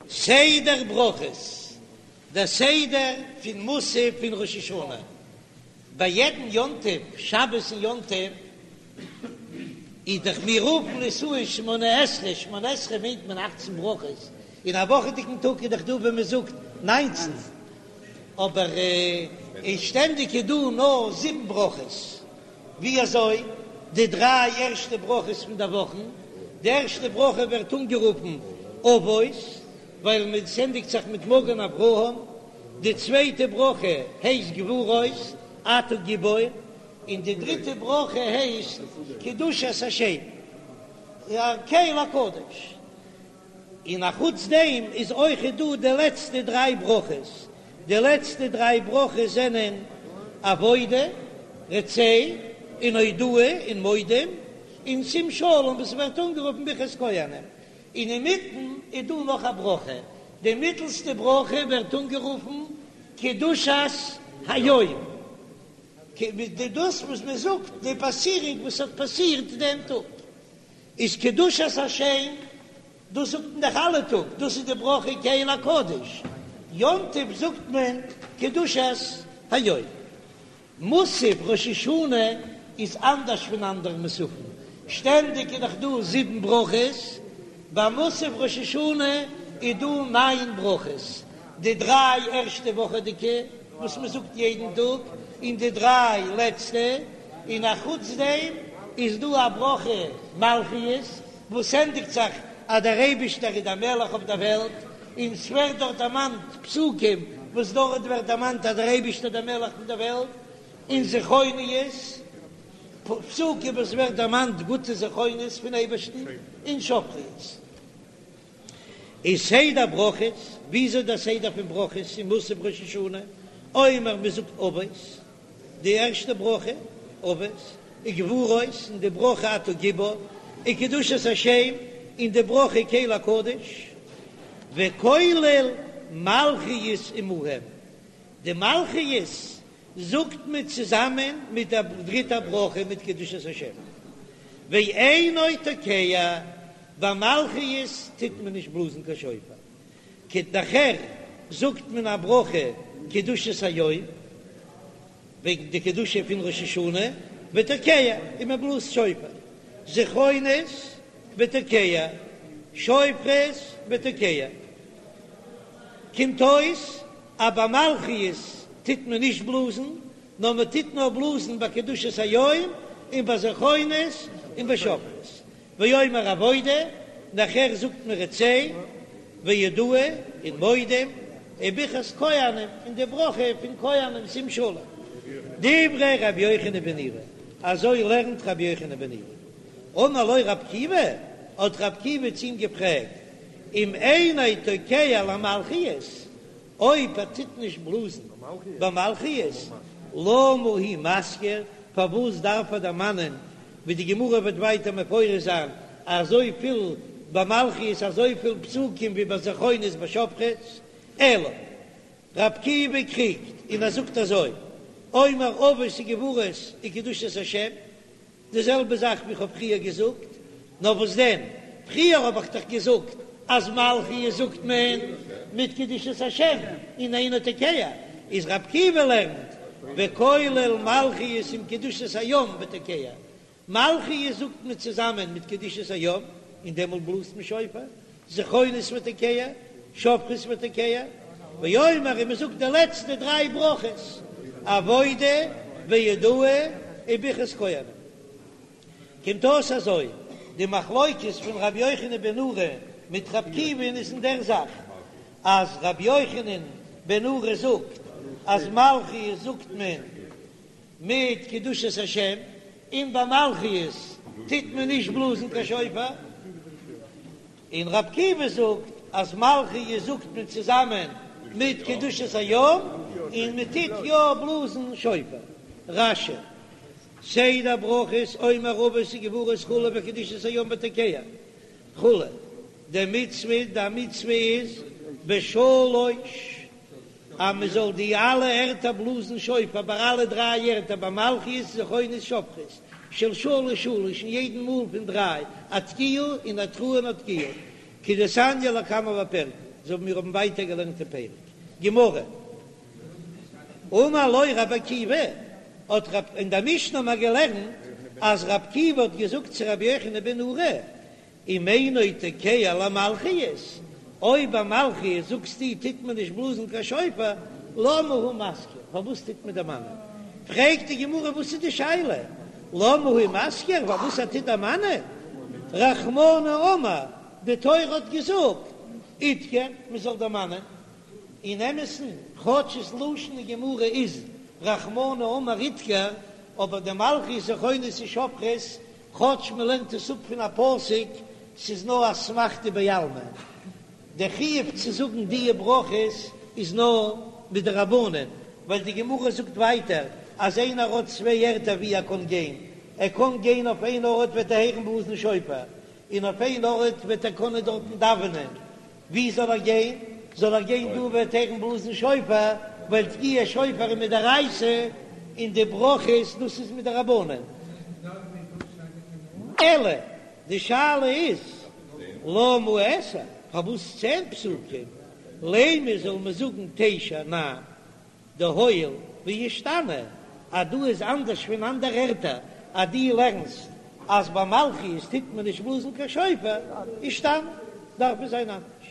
סדר ברכות, דער סדר פון מוסף פון ראש השנה, ביי יעדן יום טוב, שבת און יום טוב, איז דאך מיר רופן עס אן שמונה עשרה, שמונה עשרה מיינט מען אכצן ברכות, אין א וואכעדיגן טאג איז דאך דא ווען מען זאגט ניינצן, אבער אין שטענדיג איז דא נאר זיבן ברכות. ווי אזוי די דריי ערשטע ברכות פון די וואכן, די ערשטע ברכה ווערט אנגערופן אבות, ווייל מען ענדיגט זיך מיט מגן אברהם, די צווייטע ברכה הייסט גבורות, אתה גיבור, און די דריטע ברכה הייסט קדושת השם, קל הקדוש. און א חוץ דעם איז אויכעט דא די לעצטע דריי ברכות, די לעצטע דריי ברכות זענען עבודה, רצה, און הודאה און מודים, און שים שלום וואס ווערט אנגערופן ברכת כהנים, און אינמיטן איז דא נאך א ברכה, די מיטלסטע ברכה ווערט אנגערופן קדושת היום, דאס וואס מען זאגט די פאסירונג וואס האט פאסירט דעם טאג. איז קדושת השם, דאס זאגט מען דאך אלע טאג, דאס איז די ברכה קל הקדוש, יום טוב זאגט מען קדושת היום. מוסף ראש השנה איז אנדערש פון אנדערע מוספים, שטענדיג איז דאך דא זיבן ברכות, ביי מוסף ראש השנה איז דא ניין ברכות, די דריי ערשטע וואכעדיגע וואס מען זאגט יעדן טאג, און די דריי לעצטע, און א חוץ דעם איז דא א ברכה מלכיות וואס ענדיגט זיך אז דער אייבישטער איז דער מלך אויף דער וועלט, און ס'ווערט דארט דערמאנט פסוקים וואס דארט ווערט דערמאנט אז דער אייבישטער איז דער מלך פון דער וועלט, און זכרונות, פסוקים וואס ווערט דערמאנט גוטע זכרונות פון אייבערשטן, און שופרות. איז סדר ברכות, וויאזוי דער סדר פון ברכות אין מוסף ראש השנה, אומר מען זאגט אבות, די ערשטע ברכה, אבות, וגבורות, און די ברכה אתה גיבור, וקדושת השם, און די ברכה קל הקדוש, וכולל מלכיות עמהם, די מלכיות זאגט מען צוזאמען מיט דער דריטער ברכה מיט קדושת השם, ואינו תוקע, ביי מלכיות טוט מען נישט בלאזן קיין שופר, נאכער זאגט מען א ברכה קדושת היום, וועגן די קדושה פון ראש השנה, ותוקע, און מען בלאזט שופר, זכרונות ותוקע, שופרות ותוקע, קומט אויס אז ביי מלכיות טוט מען נישט בלאזן, נאר מען טוט נאר בלאזן ביי קדושת היום און ביי זכרונות און ביי שופרות. ואומר עבודה, נאכער זאגט מען רצה, והודאה און מודים, וברכת כהנים, און די ברכה פון כהנים שים שלום. דברי רבי יוחנן בן נורי, אזוי לערנט רבי יוחנן בן נורי. אמר לו רבי עקיבא, האט רבי עקיבא צו אים געפרעגט, אם אינו תוקע למלכיות, אויב ער טוט נישט בלאזן ביי מלכיות, למה הוא מזכיר, פארוואס דארף ער דערמאנען, ווי די גמרא וועט ווייטער מפרש זיין, אזויפיל ביי מלכיות אזויפיל פסוקים ווי ביי זכרונות ביי שופרות, אלא ר' עקיבא קריגט און ער זאגט אזוי, אומר אבות וגבורות וקדושת השם, די זעלבע זאך ווי כ'האב פריער געזאגט, נאר וואס דען, פריער האב איך דאך געזאגט אז מלכיות זאגט מען מיט קדושת השם און אינו תוקע, איז ר' עקיבא לערנט וכולל מלכיות עם קדושת היום ותוקע, מלכיות זאגט מען צוזאמען מיט קדושת היום און דעמאלט בלאזט מען שופר, זכרונות ותוקע, שופרות ותוקע, ואומר און מען זאגט די לעצטע דריי ברכות, עבודה והודאה וברכת כהנים. קומט אויס אזוי, די מחלוקת פון רבי יוחנן בן נורי מיט רבי עקיבא'ן איז אין דער זאך, אז רבי יוחנן בן נורי זאגט אז מלכיות זאגט מען מיט קדושת השם, און ביי מלכיות טוט מען נישט בלאזן קיין שופר, און ר' עקיבא זאגט אז מלכיות זאגט מען צוזאמען מיט קדושת היום, און מען טוט יא בלאזן שופר. רש"י, סדר ברכות אומר אבות וגבורות כו' וקדושת היום ותוקע כו', דמצוה, די מצוה איז בשלוש אז מען זאל די אלע ערטער בלאזן שופר ביי אלע דריי ערטער ביי מלכיות זכרונות שופרות של שלש שלש און יעדן מאל פון דריי א תקיעה און א תרועה און א תקיעה כדתניא לקמן בפרק. אזוי ווי מיר האבן ווייטער געלערנט אין פרק גמרא. אמר לו רבי עקיבא, האט רב, אין דער משנה האבן מיר געלערנט אז רבי עקיבא האט געזאגט צו רבי יוחנן בן נורי, אם אינו תוקע למלכיות, אויב ביי מלכיות זאגסטו טוט מען נישט בלאזן קיין שופר, למה הוא מזכיר, פארוואס טוט מען דערמאנען? פרעגט די גמרא וואס איז די שאלה, למה הוא מזכיר, פארוואס ער טוט דערמאנען? רחמנא אמר, די תורה האט געזאגט, אידכר, מען זאל דערמאנען. אין אמת'ן, כאטש ס'לשון אין גמרא איז רחמנא אמר אידכר, אבער די מלכיות זכרונות און שופרות, כאטש מען לערנט עס אפ פון א פסוק, ס'איז נאר אסמכתא בעלמא. דער חיוב צו זאגן דיע ברכות איז נאר מדרבנן, ווייל די גמרא זאגט ווייטער אז איינער האט צוויי ערטער ווי ער קען גיין, ער קען גיין אויף איין ארט וועט ער הערן בלאזן שופר, און אויף איין ארט וועט ער קענען דארטן דאווענען, ווי זאל ער גיין? זאל ער גיין דא וועט הערן בלאזן שופר, ווייל תקיעת שופר איז מדאורייתא און די ברכות דאס איז מדרבנן. אלא די שאלה איז למה עשר, פארוואס צען פסוקים, לימא זאל מען זאגן תשע ניין דהואיל ואישתני, אז דא איז אנדערש פון אנדערע ערטער, אז דו לערנסט אז ביי מלכיות טוט מען נישט בלאזן קיין שופר, אישתני, דארף עס זיין אנדערש.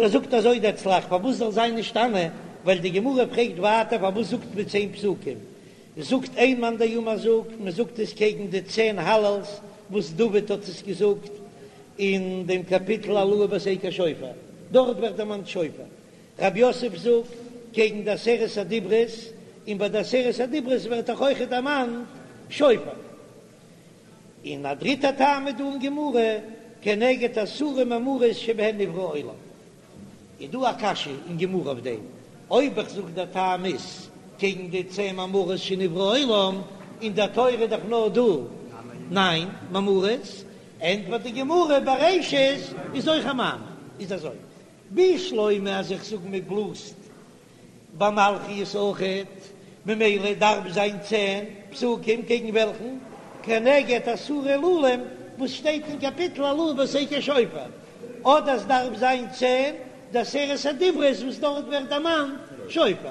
ער זאגט אזוי דער צל"ח, פארוואס זאל זיין נשתנה, ווייל די גמרא פרעגט ווייטער פארוואס זאגט מען צען פסוקים, זאגט איין מאן דאמר זאגט מען זאגט עס קעגן די צען הלל'ס וואס דוד האט עס געזאגט אין דעם קאפיטל הללוהו בתקע שופר, דארט ווערט דערמאנט שופר, רב יוסף זאגט קעגן די עשרת הדיברות, און ביי די עשרת הדיברות ווערט דאך אויכעט דערמאנט שופר. און א דריטע טעם איז דא אין גמרא, כנגד עשרה מאמרות שבהן נברא העולם. איז דא א קשיא אין גמרא אויף דעם, אויב איך זאג דער טעם איז קעגן די צען מאמרות שנברא העולם, אין דער תורה איז דאך נאר דא ניין מאמרות, ענטפערט די גמרא בראשית איז אויך א מאמר, איז אזוי, בשלמא אז איך זאג מען בלאזט ביי מלכיות אויכעט, ממילא דארף זיין צען פסוקים קעגן וועלכן? כנגד עשרה הלולים וואס שטייט אין קאפיטל הללוהו בתקע שופר, אדער סדארף זיין צען די עשרת הדיברות וואס דארט ווערט דערמאנט שופר,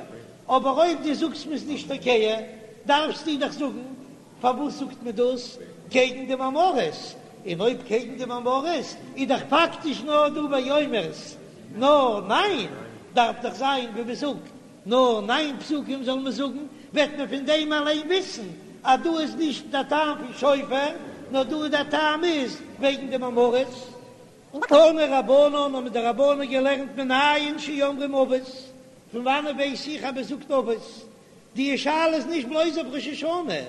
אבער אויב דו זאגסט מ'איז נישט תוקע דארפסטו דאך זאגן פארוואס זאגט מען דאס קעגן די מאמרות? און אויב קעגן די מאמרות איז דאך פאקטיש נאר דא ויאמר'ס נאר ניין, דארף דאך זיין ווי מען זאגט נאר ניין פסוקים זאל מען זאגן, וועט מען פון דעם אליין וויסן אז דא איז נישט דער טעם פון שופר, נאר דא איז דער טעם איז וועגן די מאמרות. תנו רבנן האבן די רבנן געלערנט מנין שאומרים אבות, פון וואנעט ווייס איך אז מען זאגט אבות? די שאלה איז נישט בלויז אויף ראש השנה,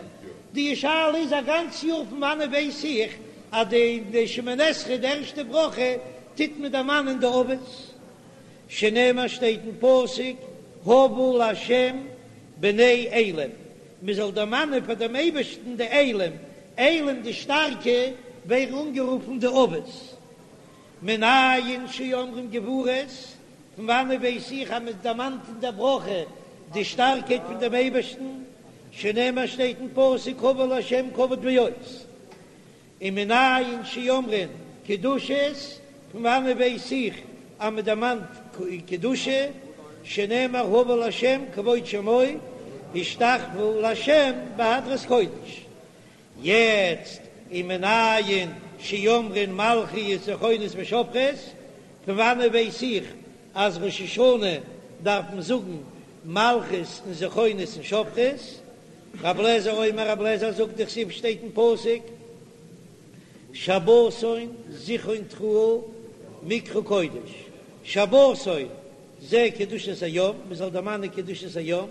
די שאלה איז א גאנץ יאר פון וואנעט ווייס איך אז די די שמונה עשרה די ערשטע ברכה טוט מען דערמאנען די אבות, שנאמר שטייט אין פסוק הבו לה' בני אלים, מען זאל דערמאנען פאר דעם אייבערשטן די אלים, אלים די שטארקע ווערן אנגערופן די אבות, מנין שאומרים גבורות, פון וואנעט ווייס איך אז מען דערמאנט אין דער ברכה די שטארקייט פון דעם אייבערשטן, שנאמר שטייט אין פסוק הבו לה' כבוד ועוז, און מנין שאומרים קדושות, פון וואנעט ווייס איך אז מען דערמאנט קדושה, שנאמר הבו לה' כבוד שמו, השתחוו לה' בהדרת קודש. יעצט ומנין שאומרים מלכיות זכרונות ושופרות, פון וואנעט ווייס איך אז ראש השנה דארף מען זאגן מלכיות און זכרונות און שופרות? רב לעזער אומר רב לעזער זאגט דכתיב שטייט אין פסוק שבתון זכרון תרועה מקרא קודש שבתון זה קדושת היום, מען זאל דערמאנען קדושת היום,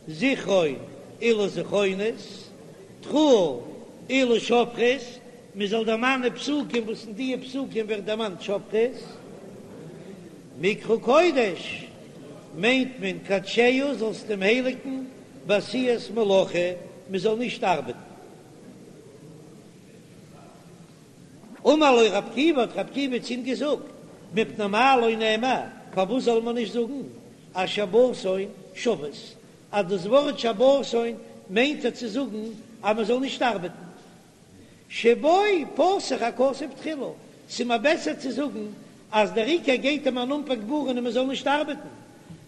זכרון אלו זכרונות, תרועה אלו שופרות, מען זאל דערמאנען פסוקים וואס אין דיע פסוקים ווערט דערמאנט שופרות, מקרא קודש מיינט מען קדשהו זאלסט אים הייליגן בעשיית מלאכה, מען זאל נישט ארבעטן. אמר לו רב עקיבא, האט רב עקיבא צו אים געזאגט, מפני מה לא נאמר, פארוואס זאל מען נישט זאגן אז שבתון שבות, אז דאס ווארט שבתון מיינט ער צו זאגן אז מען זאל נישט ארבעטן, שבו פתח הכתוב תחילה, ס'איז מיר בעסער צו זאגן. אז דער עיקר גייט אים אן אנפאנג ווארענען מען זאל נישט ארבעטן,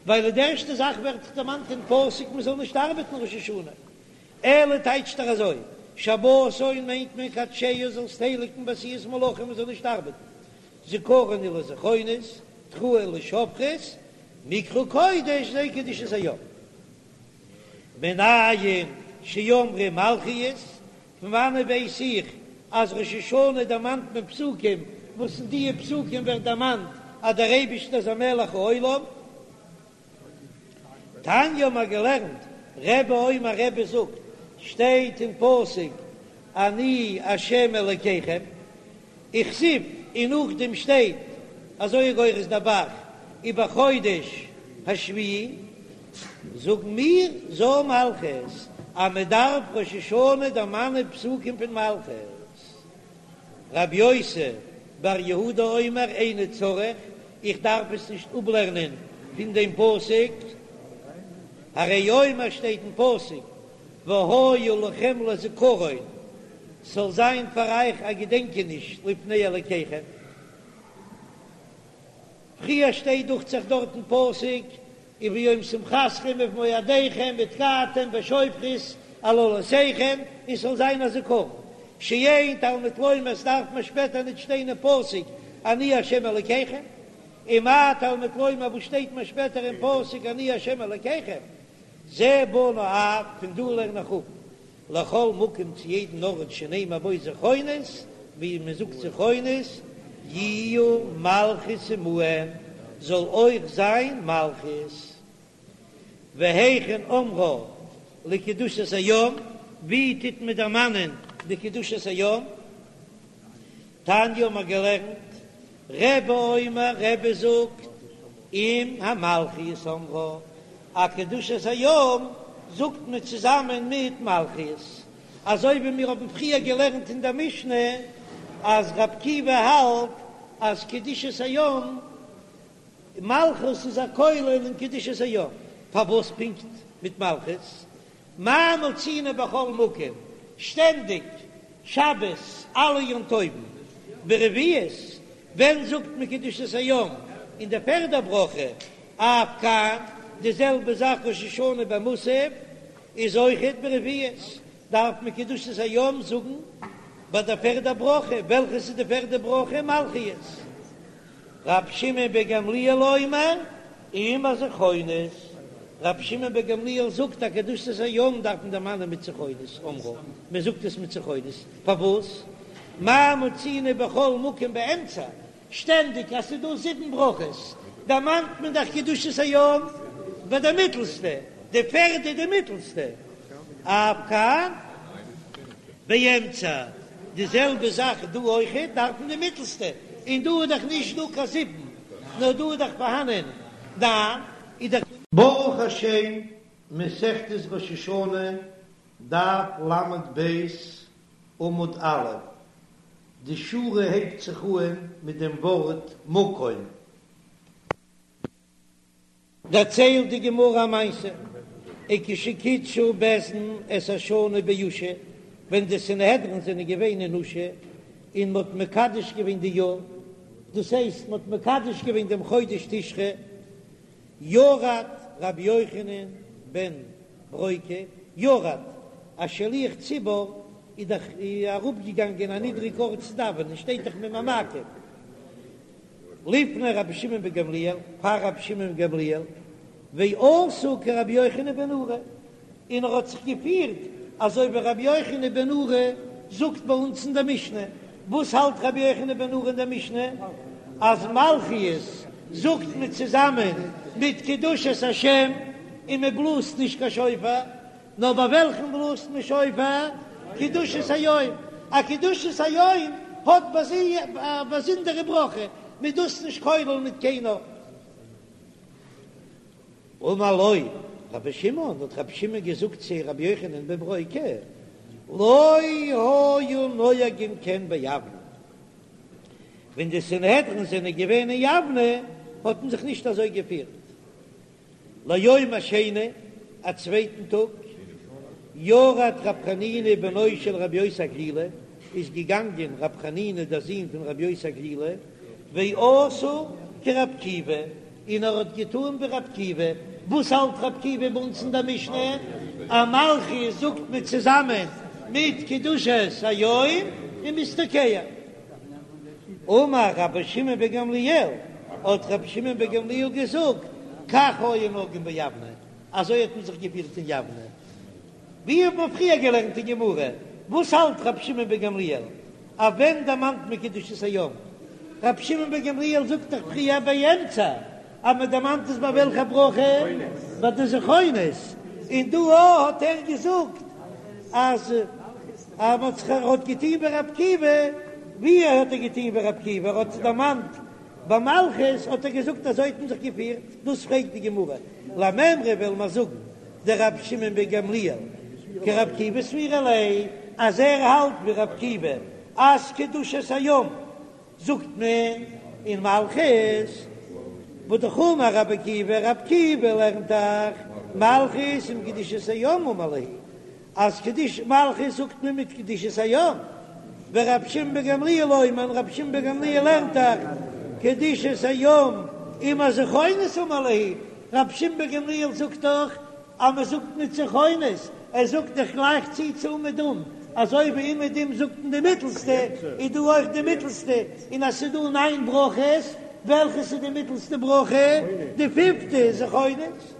ווייל די ערשטע זאך ווערט דאך דערמאנט אין פסוק מען זאל נישט ארבעטן ראש השנה. אלא טייטשט ער אזוי, שבתון מיינט מען קדשהו זאלסט הייליגן בעשיית מלאכה מען זאל נישט ארבעטן, זכרון הוא לזכרונות, תרועה לשופרות, מקרא קודש זו קדושת היום. מנין שאמרו מלכיות, פון וואנעט ווייס איך אז ראש השנה דערמאנט מען פסוקים וואס אין דיע פסוקים ווערט דערמאנט אז דער אייבישטער איז א מלך העולם? תניא האבן מיר געלערנט, רבי אומר רבי זאגט, שטייט אין פסוק אני השם אלקיכם, וכתיב, און נאכדעם שטייט אזוי גורס דער ב"ח ובחודש השביעי, זאגן מיר זו מלכות אז מען דארף ראש השנה דערמאנען פסוקים פון מלכות. רבי יוסי בר יהודה אומר איני צריך, איך דארף עס נישט אפלערנען פון דעם פסוק, הרי הוא אומר שטייט אין פסוק והיה לכם לזכרון, ס'זאל זיין פאר אייך א געדענקעניש לפני אלקיכם. פריער שטייט דוכט זיך דארט אין פסוק וביום שמחתכם ובמועדיכם ותקעתם בשופרות על עולותיכם, און ס'זאל זיין א זכרון, שאין תלמוד לומר, ס'דארף מען שפעטער ניט שטיין אין פסוק אני ה' אלקיכם, ומה תלמוד לומר וואס שטייט מען שפעטער אין פסוק אני ה' אלקיכם, זה בנה אב, פון דא לערן איך אפ לכל מקום צו יעדן ארט שנאמר בו זכרונות, ווי מען זאגט זכרונות, יהיו מלכיות עמהם, זאל אויך זיין מלכיות. והיכן אומרה לקדושת היום, ווי טוט מען דערמאנען די קדושת היום? תניא האבן מיר געלערנט, רבי אומר, רבי זאגט, עם המלכיות אומרה, א קדושת היום זאגט מען צוזאמען מיט מלכיות, אזוי ווי מיר האבן פריער געלערנט אין דער משנה אז רבי עקיבא האלט אז קדושת היום, מלכות איז א כולל אין קדושת היום, פארוואס פונקט מיט מלכות? מה מצינו בכל מקום, שטענדיג, שבת, אלע יום טובים, ברביעית, ווען זאגט מען קדושת היום? אין די פערדע ברכה, אף כאן, די זעלבע זאך ראש השנה ביי מוסף איז אויכעט ברביעית, דארף מען קדושת היום זאגן ביי די פערדע ברכה, וועלכעס איז די פערדע ברכה? מלכיות. רבי שמעון בן גמליאל אומר, עם הזכרונות, רבי שמעון בן גמליאל זאגט אז קדושת היום דארף מען דערמאנען מיט זכרונות, אומרה, מען זאגט עס מיט זכרונות, פארוואס? מה מצינו בכל מקום באמצע, שטענדיג אז ס'איז דא זיבן ברכות, דערמאנט מען דאך קדושת היום ביי די מיטלסטע, די פערדע די מיטלסטע, אף כאן באמצע, די זעלבע זאך דא אויכעט דארף מען די מיטלסטע, און דא איז דאך נישט דא קיין זיבן, נאר דא איז דאך פארהאנען ניין, איז דאך. ברוך השם, מסכת ראש השנה, דף ל"ב, עמוד א', די שורה הייבט זיך אהן מיט דעם ווארט מקום. דערציילט די גמרא א מעשה, וכשקידשו בית דין את השנה באושא, ווען די סנהדרין זענען געווען אין אושא און מ'האט מקדש געווען די יאר, דאס הייסט מ'האט מקדש געווען דעם חודש תשרי, ירד רבי יוחנן בן ברוקה, ירד, א שליח ציבור איז דאך אראפגעגאנגען א נידריג ארט צו דאווענען, שטייט דאך ממעמקים. לפני רבי שמעון בן גמליאל, פאר רבי שמעון בן גמליאל, ועשה כרבי יוחנן בן נורי, און ער האט זיך געפירט אזוי ווי רבי יוחנן בן נורי זאגט ביי אונז אין דער משנה, וואס האלט רבי יוחנן בן נורי אין דער משנה? אז מלכיות זאגט מען צוזאמען מיט קדושת השם און מען בלאזט נישט קיין שופר, נאר ביי וועלכן בלאזט מען שופר? קדושת היום. א קדושת היום האט ביי זיך א באזונדערע ברכה, מ'איז דאס נישט כולל מיט קיינער. אמר לו רבי שמעון, האט רבי שמעון געזאגט צו רבי יוחנן בן ברוקה, לא היו נוהגין כן ביבנה, ווען די סנהדרין זענען געווען אין יבנה האט מען זיך נישט אזוי געפירט. ליום השני, א צווייטן טאג, ירד רב חנינא בנו של רבי יוסי הגלילי, איז געגאנגען רב חנינא דער זון פון רבי יוסי הגלילי, ועשה כרבי עקיבא, און ער האט געטאן ווי רבי עקיבא. וואס האלט רבי עקיבא ביי אונז אין דער משנה? אז מלכיות זאגט מען צוזאמען מיט קדושת היום און מ'איז תוקע. אמר רבי שמעון בן גמליאל, האט רבי שמעון בן גמליאל געזאגט, כך היו נוהגין ביבנה, אזוי האט מען זיך געפירט אין יבנה. ווי האט מען פריער געלערנט אין גמרא? וואס האלט רבי שמעון בן גמליאל? אויף ווען דערמאנט מען קדושת היום? רבי שמעון בן גמליאל זאגט דאך פריער באמצע אז מען דערמאנט עס ביי וועלכע ברכה? ביי די זכרונות, און דא האט ער געזאגט אז אז מען האט זיך ער האט געטון ווי רבי עקיבא, ווי האט ער געטון ווי רבי עקיבא? ער האט עס דערמאנט ביי מלכיות האט ער געזאגט אזוי האט מען זיך געפירט, דאס פרעגט די גמרא, למימרא וועלן מיר זאגן דרבי שמעון בן גמליאל כרבי עקיבא סבירא ליה, אז ער האלט ווי רבי עקיבא אז קדושת היום זאגט מען אין מלכיות, והא דאמר רבי עקיבא, רבי עקיבא לערנט דאך מלכיות עם קדושת היום אמר להו, אז קדוש מלכיות זאגט מען מיט קדושת היום, ורבי שמעון בן גמליאל אומר, רבי שמעון בן גמליאל לערנט דאך קדושת היום עם הזכרונות אמר להו, רבי שמעון בן גמליאל זאגט דאך אז מען זאגט מיט זכרונות, ער זאגט דאך גלייך צו צו אומעדום, אזוי ווי אומעדום זאגט מען די מיטלסטע, איז דא אויך די מיטלסטע, און אז ס'איז דא ניין ברכות, וועלכעס איז די מיטלסטע ברכה? די פיפטע, זכרונות.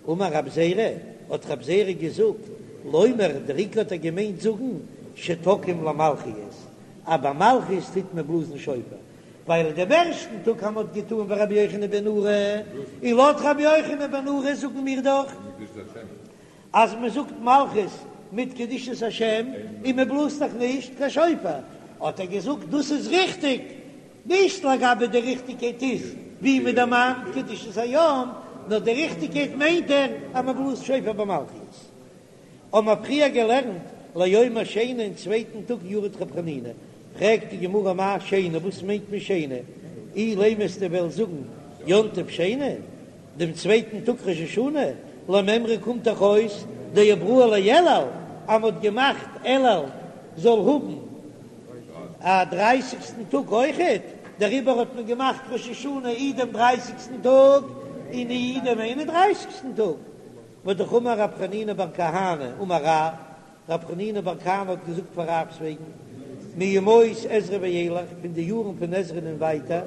אמר רב זירא, האט רב זירא געזאגט, לומר, דער עיקר האט ער געמיינט זאגן, שתוקעים למלכיות, אז ביי מלכיות טוט מען בלאזן שופר, ווייל דעם ערשטן טאג אז מ'האט געטאן ווי רבי יוחנן בן נורי, און לויט רבי יוחנן בן נורי זאגן מיר דאך אז מען זאגט מלכיות מיט קדושת השם און מען בלאזט דאך נישט קיין שופר, האט ער געזאגט דאס איז ריכטיג, נישט לגבי די ריכטיגקייט איז ווי מען דערמאנט קדושת היום, נאר די ריכטיגקייט מיינט ער אז מען בלאזט שופר ביי מלכיות. האבן מיר פריער געלערנט ליום השני אין צווייטן טאג ירד ר' חנינא, פרעגט די גמרא מאי שני וואס מיינט מען שני, אילימא וועסטו וועלן זאגן יום טוב שני, דעם צווייטן טאג ראש השנה, למימרא קומט דאך אויס דעברוה לאלול אז מען האט געמאכט אלול זאל האבן א דרייסיגסטן טאג אויכעט, דעריבער האט מען געמאכט ראש השנה אי דעם דרייסיגסטן טאג און אי דעם איין און דרייסיגסטן טאג. והא דאמר רב חנינא בר כהנא אמר רב, רב חנינא בר כהנא האט געזאגט פאר רב'ס וועגן, מימות עזרא ואילך, פון די יארן פון עזרא און ווייטער,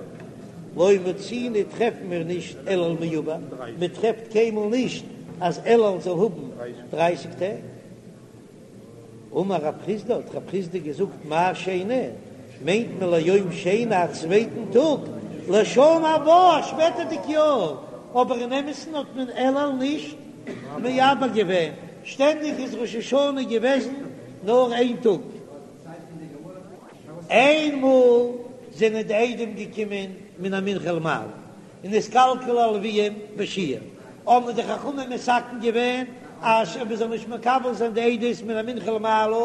לא מצינו טרעפן מיר נישט אלול מעובר, מען טרעפט קיינמאל נישט אז אלול זאל האבן דרייסיג טעג. אמר רב חסדא, האט רב חסדא געזאגט, מאי שני, מיינט מען ליום שני א צווייטן טאג, לשנה הבאה א שפעטערדיג יאר, אבער אין אמת'ן האט מען אלול נישט מעבר געווען, שטענדיג איז ראש השנה געוועזן נאר איין טאג. איינמאל זענען די עדים געקומען מן המנחה ולמעלה, און נתקלקלו הלוים בשיעור, האבן די חכמים מתקן געווען אז מען זאל נישט מקבל זיין די עדות מן המנחה ולמעלה,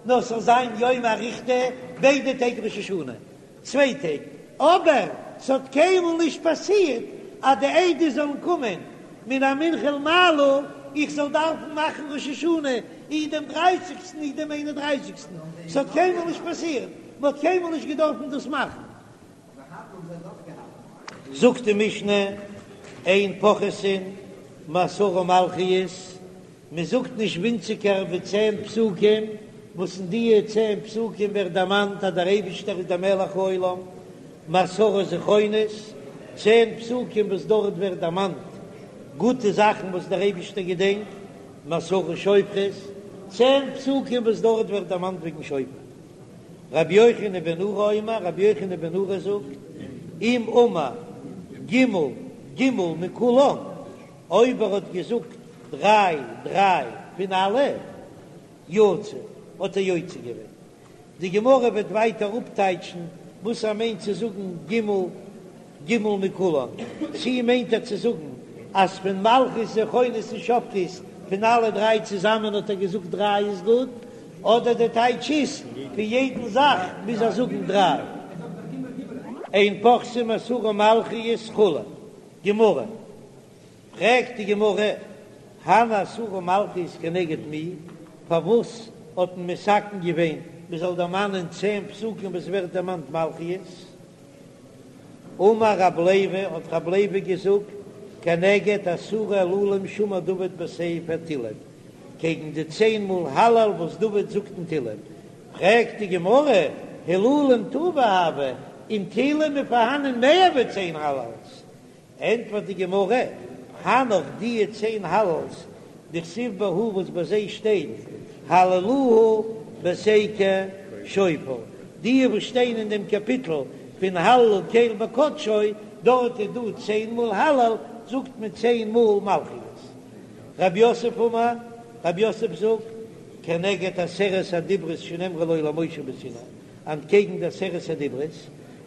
נאר ס'זאל זיין יומא אריכתא ביידע טעג ראש השנה, צוויי טעג, אבער ס'האט קיינמאל נישט פאסירט אז די עדות זאלן קומען מן המנחה ולמעלה, איך זאל דארפן מאכן ראש השנה אי דעם דרייסיגסטן אי דעם איין און דרייסיגסטן, ס'האט קיינמאל נישט פאסירט, מ'האט קיינמאל נישט געדארפן דאס מאכן. זאגט די משנה, אין פוחתין מעשרה מלכיות, מען זאגט נישט ווינציגער ווי צען פסוקים, וואס אין דיע צען פסוקים ווערט דערמאנט אז דער אייבישטער איז דער מלך העולם, מעשרה זכרונות, צען פסוקים וואס דארט ווערט דערמאנט גוטע זאכן וואס דער אייבישטער געדענקט, מעשרה שופרות, צען פסוקים וואס דארט ווערט דערמאנט וועגן שופר. רבי יוחנן בן נורי אומר, רבי יוחנן בן נורי זאגט, אם אמר ג' ג' מכולן, אויב ער האט געזאגט דריי דריי פון אלע, יצא, האט ער יוצא געווען. די גמרא וועט ווייטער אפטייטשן וואס ער מיינט צו זאגן ג' ג' מכולן, צי מיינט ער צו זאגן אז פון מלכיות זכרונות און שופרות פון אלע דריי צוזאמען האט ער געזאגט דריי איז גוט, אדער די טייטש איז פון יעדן זאך מוז ער זאגן דריי. אין פוחתין מעשרה מלכיות כו', גמרא, פרעגט די גמרא, הני עשרה מלכיות כנגד מי, פארוואס האט מען מתקן געווען מען זאל דערמאנען צען פסוקים וואס ווערט דערמאנט מלכיות? אמר רב לוי, האט רב לוי געזאגט, כנגד עשרה הילולים שאמר דוד בספר תהילים, קעגן די צען מאל הלל וואס דוד זאגט אין תהילים, פרעגט די גמרא, הילולים טובא הוו, אין תהילים איז פארהאנען מער ווי צען הלל'ס, ענטפערט די גמרא, הנך דיע צען הלל'ס דכתיב בהו וואס ביי זיי שטייט הללוהו בתקע שופר, דיע וואס שטייען אין דעם קאפיטל פון הללו קל בקדשו, דארט איז דא צען מאל הלל, זאגט מען צען מאל מלכיות. רב יוסף אמר, רב יוסף זאגט, כנגד עשרת הדיברות שנאמרו לו למשה בסיני, אנטקעגן די עשרת הדיברות,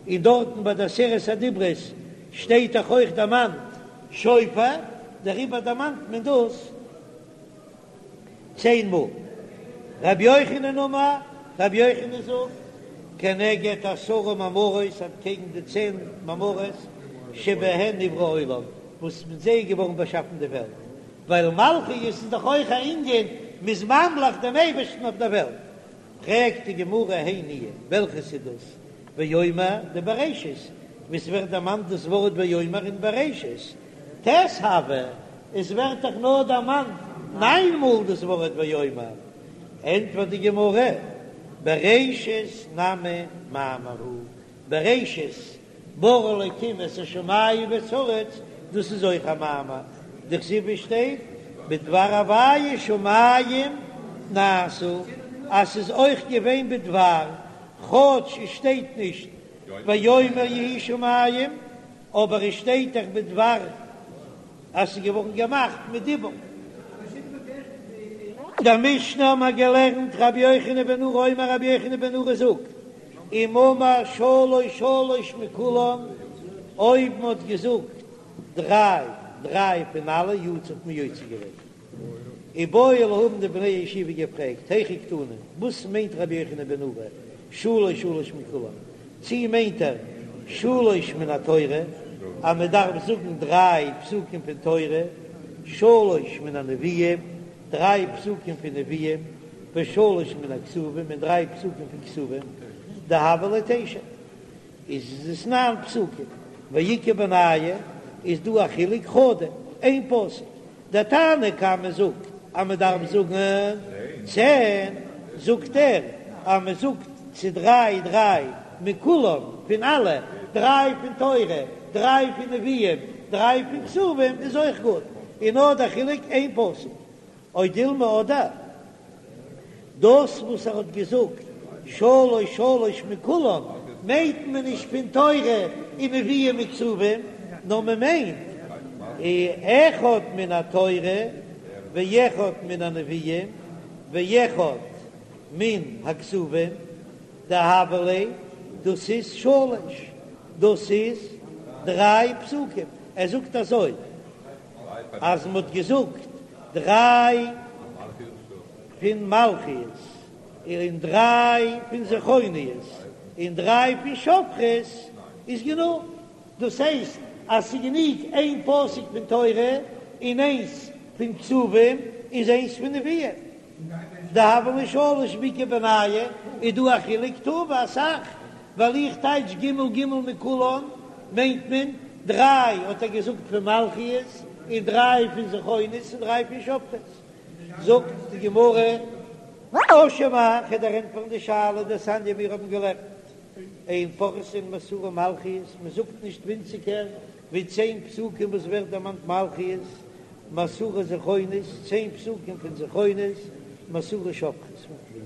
און דארטן ביי די עשרת הדיברות שטייט דאך אויך דערמאנט שופר, דעריבער דערמאנט מען דאס צען מאל. רבי יוחנן אמר, רבי יוחנן זאגט, כנגד עשרה מאמרות, אנטקעגן די צען מאמרות שבהן נברא העולם, וואס מיט זיי איז געווארן באשאפן די וועלט, ווייל מלכיות איז דאך אויך א ענין, מ'איז ממליך דעם אייבערשטן אויף דער וועלט. פרעגט די גמרא הי ניהו, וועלכעס איז דאס ויאמר דבראשית, וואו ס'ווערט דערמאנט דאס ווארט ויאמר אין בראשית, טית הוו, עס ווערט דאך נאר דערמאנט ניין מאל דאס ווארט ויאמר, ענטפערט די גמרא, בראשית נמי מאמר הוא, בראשית ברא אלקים את השמים ואת הארץ, דאס איז אויך א מאמר, דכתיב ווי שטייט בדבר הוויה שמים נעשו, אז ס'איז אויך געווען בדבר, כאטש עס שטייט נישט ויאמר יהי שמים, אבער עס שטייט דאך בדבר אז ס'איז געווארן געמאכט מיט דיבור. אין דער משנה האבן מיר געלערנט רבי יוחנן בן נורי אומר רבי יוחנן בן נורי זאגט, אם אמר שלוש שלוש מכולן, אויב מען האט געזאגט דריי דריי פון אלע יצא האט מען יוצא געווען. איבעיא להו האבן די בני הישיבה געפרעגט, היכי קתני, וואס מיינט רבי יוחנן בן נורי שלוש שלוש מכולן, צי מיינט ער שלוש מן התורה אז מען דארף זאגן דריי פסוקים פון תורה, שלוש מן הנביאים, דריי פסוקים פון נביאים, ושלוש מן הכתובים און דריי פסוקים פון כתובים, דהוו ליה תשע, איז עס ניין פסוקים, ואיכא בינייהו איז דא א חילוק חדא, איין פסוק, דער תנא קמא זאגט אז מען דארף זאגן צען, זאגט ער אז מען זאגט צו דריי דריי מכולם פון אלע, דריי פון תורה, דריי פון נביאים, דריי פון כתובים איז אויך גוט, און נאר דער חילוק איין פסוק. או דילמא אדער דאס וואס ער האט געזאגט שלוש שלוש מכולם מיינט מען נישט פון תורה און נביאים וכתובים, נאר מען מיינט אחד מן התורה ואחד מן הנביאים ואחד מן הכתובים דהוו ליה, דאס איז שלוש, דאס איז דריי פסוקים, ער זאגט אזוי. אז מ'האט געזאגט דריי פון מלכיות און דריי פון זכרונות און דריי פון שופרות איז גענוג, דאס הייסט אז ס'איז גענוג איין פסוק פון תורה און איינס פון כתובים און איינס פון נביאים. דהוו ליה שלש ואיכא בינייהו איז דא א חילוק טובא אסאך, ווייל איך טייטש ג' ג' מכולן מיינט מען דריי האט ער געזאגט פון מלכיות און דריי פון זכרונות און דריי פון שופרות, זאגט די גמרא תא שמע כ'וועל דיר ענטפערן די שאלה דתניא מיר האבן געלערנט אין פוחתין מעשרה מלכיות מען זאגט נישט ווינציגער ווי צען פסוקים וואס ווערט דערמאנט מלכיות מעשרה זכרונות, צען פסוקים פון זכרונות, מעשרה שופרות.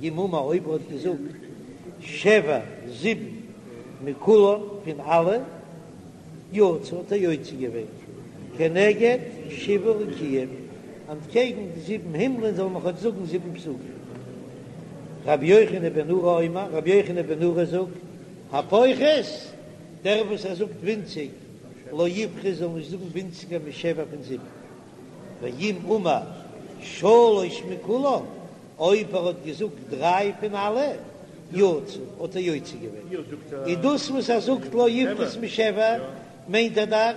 ואם אמר אויב ער האט געזאגט שבע, זיבן, מכולן, פון אלע, יצא האט ער יוצא געווען, כנגד שבעה רקיעים, אנטקעגן די זיבן הימלען זאל מען כאטש זאגן זיבן פסוקים. רבי יוחנן בן נורי אומר, רבי יוחנן בן נורי זאגט, הפוחת, דער וואס ער זאגט ווינציג, לא יפחות זאל נישט זאגן ווינציגער משבע פון זיבן, ואם אמר שלש מכולן, אויב ער האט געזאגט דריי פון אלע, יצא, האט ער יוצא געווען. און דאס וואס ער זאגט לא יפחות משבע, מיינט ער דאך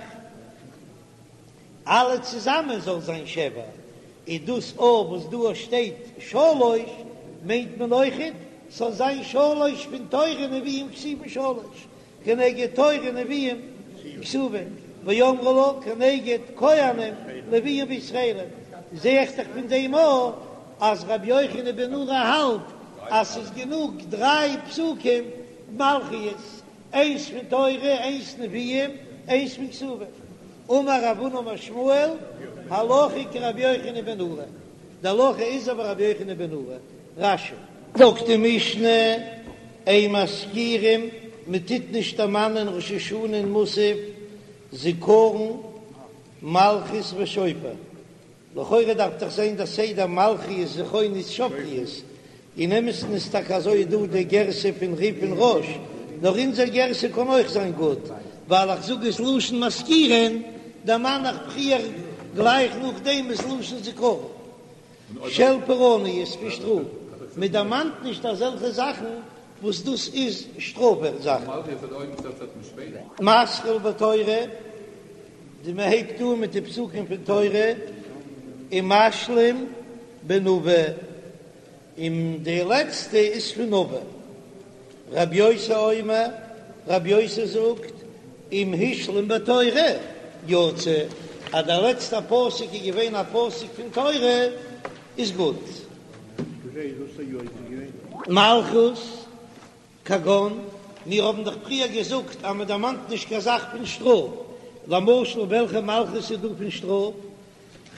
אלע צוזאמען זאל זיין שבע, און דאס אויך וואס דא שטייט שלש, מיינט מען אויכעט ס'זאל זיין שלש פון תורה נביאים כתובים שלש, כנגד תורה נביאים. כתובים, ואמרי לה כנגד כהנים לוויים וישראלים, זע איך דאך פון דעם אויך אז רבי יוחנן בן נורי האלט אז ס'איז גענוג דריי פסוקים מלכיות, איינס פון תורה, איינס נביאים, איינס פון כתובים. אמר רב הונא אמר שמואל, הלכה כרבי יוחנן בן נורי, די הלכה איז אזוי ווי רבי יוחנן בן נורי. רש"י. זאגט די משנה, אין מזכירים, מען טוט נישט דערמאנען ראש השנה אין מוסף, זכרון, מלכיות ושופר. לכאורה דארף דאך זיין דער סדר מלכיות זכרונות שופרות, אין אמת'ן איז טאקע אזוי דא די גרסה פון רי"ף און רא"ש, נאר אונזער גרסה קען אויך זיין גוט, ווייל איך זאג עס לשון מזכירין, דערמאן איך פריער גלייך נאכדעם איז לשון זכרון של פורענות פון שטראף, מען דערמאנט נישט אזעלכע זאכן וואס דאס איז שטראף זאכן. מתחיל בתורה, די מען הייבט אן מיט די פסוקים פון תורה, ומשלים בנביא, און די לעצטע איז פון נביא. רבי יוסי אומר, רבי יוסי זאגט, אם השלים בתורה יצא, אז דער לעצטער פסוק איז געווען א פסוק פון תורה איז גוט. מלכות, כגון, מיר האבן דאך פריער געזאגט אז מען דערמאנט נישט קיין זאך פון שטראף, למשל וועלכע מלכות איז דא פון שטראף?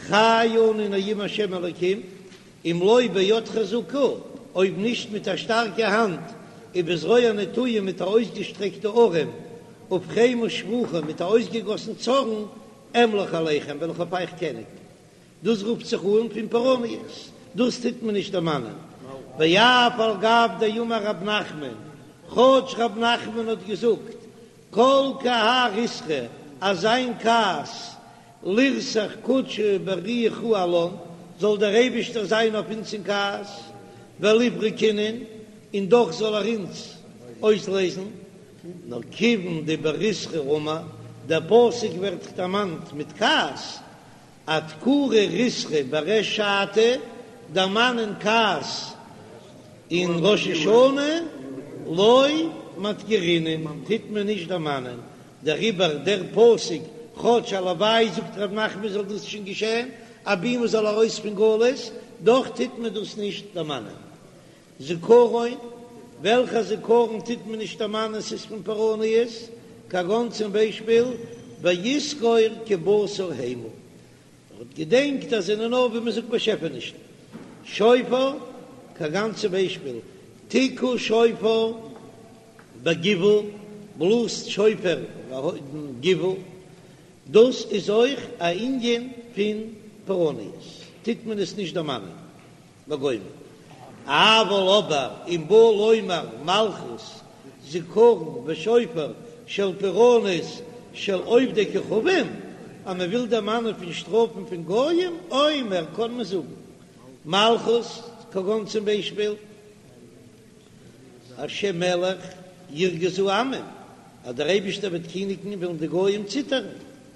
חי אני נאום השם אלקים, אם לא ביד חזקה, אויב נישט מיט א שטארקע האנט, ובזרוע נטויה מיט א אויסגעשטרעקטע ארעם, ובחמה שפוכה מיט א אויסגעגאסן צארן, אמלוך עליכם וועל איך אויף אייך קעניגן. דאס רופט זיך אן פון פורעניות, דאס טוט מען נישט דערמאנען. ואף על גב דאמר רב נחמן, כאטש רב נחמן האט געזאגט כל כי האי ריתחא, אז זיין כעס לרתח קודשא בריך הוא עלן, זאל דער אייבישטער זיין אויף אונז אין כעס, וליפרק אינון, און דאך זאל ער אונז אויסלעזן, נאר כיוון דבריתחא אמר, דער פסוק ווערט דערמאנט מיט כעס, אדכורי ריתחא בריש שעתא, דערמאנען כעס אין ראש השנה, לא מדכרינן, טוט מען נישט דערמאנען, דעריבער דער פסוק, כאטש הלוואי זאגט ר' נחמן זאל דאס שוין געשען, אבי מען זאל ארויס פון גלות, דאך טוט מען דאס נישט דערמאנען. זכרון, וועלכע זכרון טוט מען נישט דערמאנען ס'איז פון פורעניות, כגון צום ביישפיל ויזכור כי בשר המה, ער האט געדענקט אז זענען נאר ווי מ'זאגט באשעפענישן. שופר, כגון צום ביישפיל תקעו שופר בגבעה, בלאזט שופר אין גבעה, דאס איז אויך א ענין פון פורעניות, טוט מען עס נישט דערמאנען. וגומר. אבל אבער אם בא לומר מלכות זכרון ושופר של פורענות של עובדי כוכבים, אז מען וויל דערמאנען פון שטראפן פון גויים, אומר קען מען זאגן מלכות כגון צום ביישפיל השם מלך ירגזו עמים, אז דער אייבישטער וועט קיניגן וועלן די גויים ציטערן,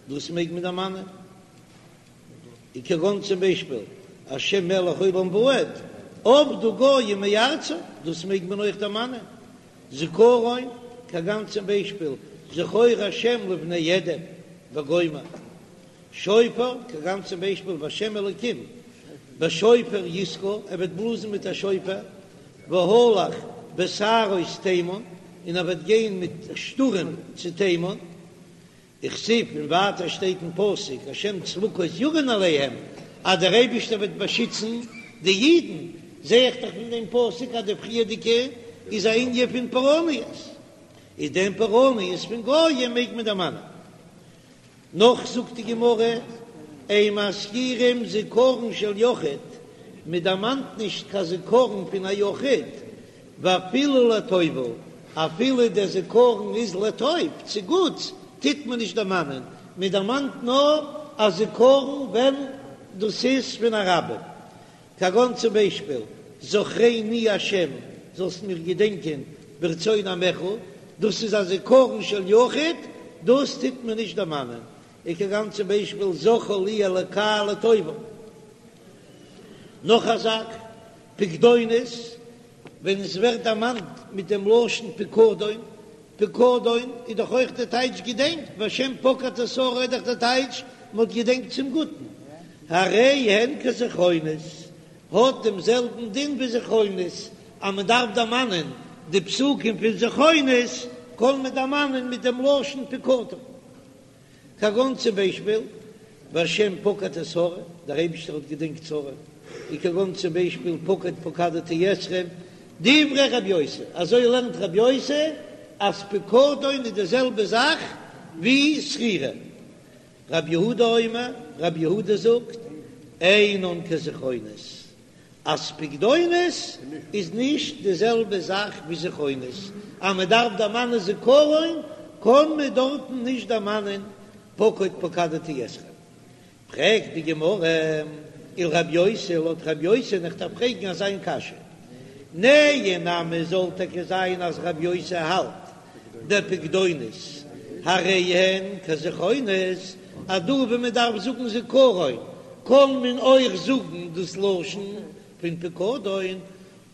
דאס מעג מען דערמאנען. און כגון צום ביישפיל השם מלך עולם ועד, אבדו גוים מארצו, דאס מעג מען אויך דערמאנען. זכרון, כגון צום ביישפיל זכור השם לבני אדום וגומר. שופר, כגון צום ביישפיל והשם אלוקים בשופר יתקע, ער וועט בלאזן מיט א שופר, והלך בסערות תימן, און ער וועט גיין מיט שטורעם צו תימן. וכתיב און ווייטער שטייט אין פסוק השם צבקות יגן עליהם אז דער אייבישטער וועט באשיצן די אידן, זע איך דאך פון דעם פסוק אז די פריערדיגע איז א ענין פון פורעניות, איז דעם פורעניות פון גויים מעג מען דערמאנען. נאך זאגט די גמרא, אין מזכירים זכרון של יחיד, מען דערמאנט נישט קיין זכרון פון א יחיד, ואפילו לטובה, אפילו דער זכרון איז לטוב, צו גוטס, טוט מען נישט דערמאנען, מען דערמאנט נאר א זכרון ווען דאס איז פון א רבים, כגון צום ביישפיל, זכרני השם, זאלסט מיך געדענקען ברצון עמך, דאס איז א זכרון של יחיד, דאס טוט מען נישט דערמאנען, וכגון צום ביישפיל, זכור לי אלקי לטובה. נאך א זאך, פקדונות, ווען עס ווערט דערמאנט מיט דעם לשון פקדון, פקדון איז דאך אויך די טייטש געדענקט, והשם פקד את שרה איז דאך די טייטש מען האט געדענקט צום גוטן, הרי הן כזכרונות, האט דעם זעלבן דין ווי זכרונות, אז מען דארף דערמאנען די פסוקים פון זכרונות, קען מען דערמאנען מיט דעם לשון פקדון. כגון צום ביישפיל, והשם פקד את שרה, דער אייבישטער האט געדענקט שרה, און כגון צום ביישפיל, פקד פקדתי אתכם, דברי רב יוסי, אזוי לערנט רב יוסי אז פקדון איז די זעלבע זאך ווי זכירה. רב יהודה אומר, רב יהודה זאגט, אינן כזכרונות, אז פקדונות איז נישט די זעלבע זאך ווי זכרונות, אז מען דארף דערמאנען זכרון קען מען דארטן נישט דערמאנען פקוד פקדתי אתכם. פרעגט די גמרא, ולרב יוסי, לויט רב יוסי איך דארף פרעגן אזא איין קשיא, נהי נמי זאל טאקע זיין אז רב יוסי האלט דפקדונות הרי הן כזכרונות, אז דא ווען מען דארף זאגן זכרון קען מען אויך זאגן דאס לשון פון פקדון,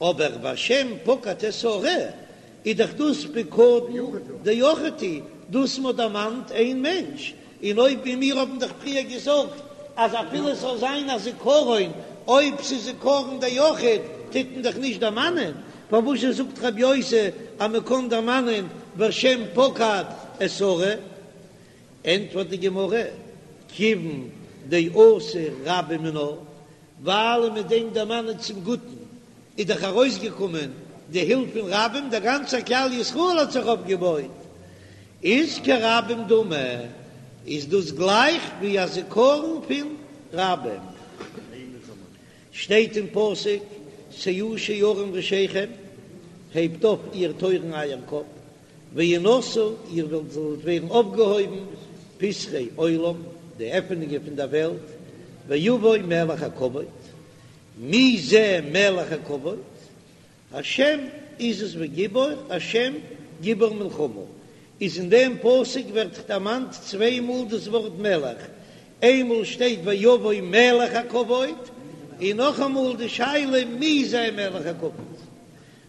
אבער והשם פקד את שרה איז דאך דאס פקדון דיחיד הוא, דאס מ'האט דערמאנט איין מענטש, און אויב ווי מיר האבן דאך פריער געזאגט אז אפילו עס זאל זיין א זכרון, אויב ס'איז זכרון דיחיד טוט מען דאך נישט דערמאנען, פארוואזשע זאגט רבי יוסי אז מען קען דערמאנען והשם פקד את שרה? ענטפערט די גמרא, כיוון דאתו רבים מינה, ווייל מיט דעם דערמאנען צום גוטן איז דאך ארויסגעקומען די הילף פון רבים, דער גאנצער כלל ישראל האט זיך אויפגעבויט, איז כרבים דמי, איז דאס גלייך ווי א זכרון פון רבים. שטייט אין פסוק, שאו שערים ראשיכם, הייבט אויף איר טויערן אייער קאפ, והנשאו, איר וועלט זאלט ווערן אויפגעהויבן, פתחי עולם, די עפענונגען פון דער וועלט, ויבוא מלך הכבוד, מי זה מלך הכבוד? השם עזוז וגיבור, השם גיבור מלחמה, איז אין דעם פסוק ווערט דערמאנט צוויי מאל דאס ווארט מלך, איינמאל שטייט ויבוא מלך הכבוד, און נאכאמאל די שאלה מי זה מלך הכבוד.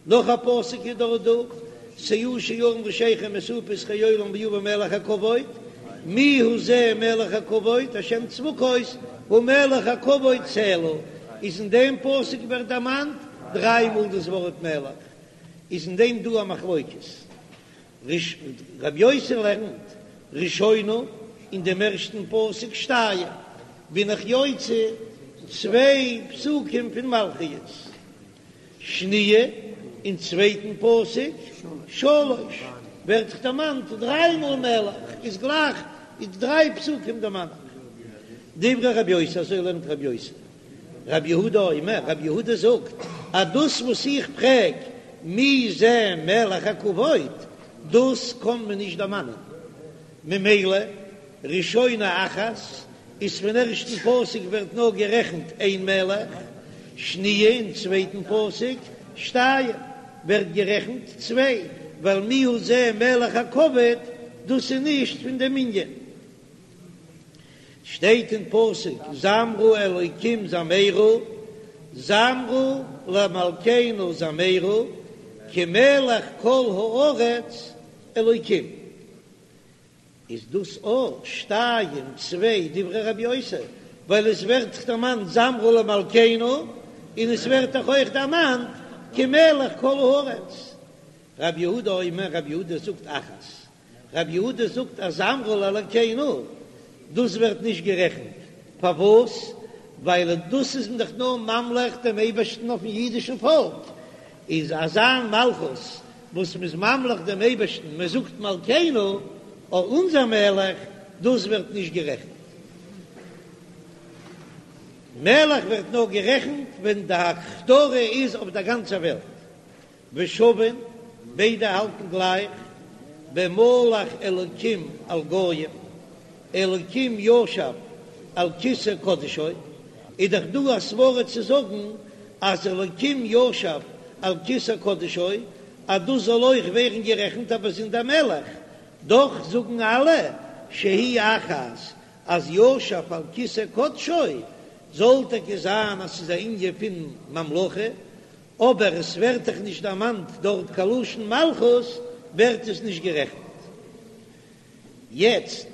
נאך א פסוק איז דארט דא, שאו שערים ראשיכם ושאו פתחי עולם ויבא מלך הכבוד, מי הוא זה מלך הכבוד, השם צבקות הוא מלך הכבוד סלה, איז אין דעם פסוק ווערט דערמאנט דריי מאל דאס ווארט מלך, איז אין דעם דא א מחלוקת, רבי יוסי לערנט ראשונה אין דעם ערשטן פסוק שתיים, בין איך יוצא צוויי פסוקים פון מלכיות. שניה, אין צווייטן פסוק, שלש, ווערט דאך דערמאנט דריי מאל מלך, איז גלייך איז דריי פסוקים דערמאנט. דברי רבי יוסי, אזוי לערנט רבי יוסי. רבי יהודה אומר, רבי יהודה זאגט, אז דאס וואס איך פרעג מי זה מלך הכבוד, דאס קען מען נישט דערמאנען, ממילא ראשונה אחת איז פון ערשטן פסוק ווערט נאר גערעכנט איין מלך, שניה אין צווייטן פסוק שתיים ווערט גערעכנט צוויי, ווייל מי הוא זה מלך הכבוד דאס איז נישט פון דעם מנין. שטייט אין פסוק זמרו אלוקים זמרו, זמרו למלכנו זמרו, כי מלך כל הארץ אלוקים. איז דאס אויך שתיים צוויי דברי רבי יוסי, ווייל עס ווערט דאך דערמאנט זמרו למלכנו, און עס ווערט דאך אויך דערמאנט כי מלך כל הארץ. רבי יהודה אומר, רבי יהודה זאגט אחת, רבי יהודה זאגט אז זמרו לאלקינו דאס ווערט נישט גערעכנט, פארוואס? ווייל דאס איז מען דאך נאר ממליך דעם אייבערשטן אויפן אידישן פאלק, איז אזא מלכות וואס מ'איז ממליך דעם אייבערשטן, מען זאגט מלכנו, או אונזער מלך, דאס ווערט נישט גערעכנט. מלך ווערט נאר גערעכנט ווען די הכתרה איז אויף דער גאנצער וועלט. ושווין, ביידע האלטן גלייך, במלך אלקים על גוים, אלקים ישב על כסא קדשו, איז דאך דא א סברא צו זאגן אז אלקים ישב על כסא קדשו אז דאס זאל אויך ווערן גערעכנט א באזונדער מלך, דאך זאגן אלע שהיא אחת אז ישב על כסא קדשו זאל טאקע זיין אז ס'איז א ענין פון ממלכה, אבער עס ווערט דאך נישט דערמאנט דארט קיין לשון מלכות. ווערט עס נישט גערעכנט. יעצט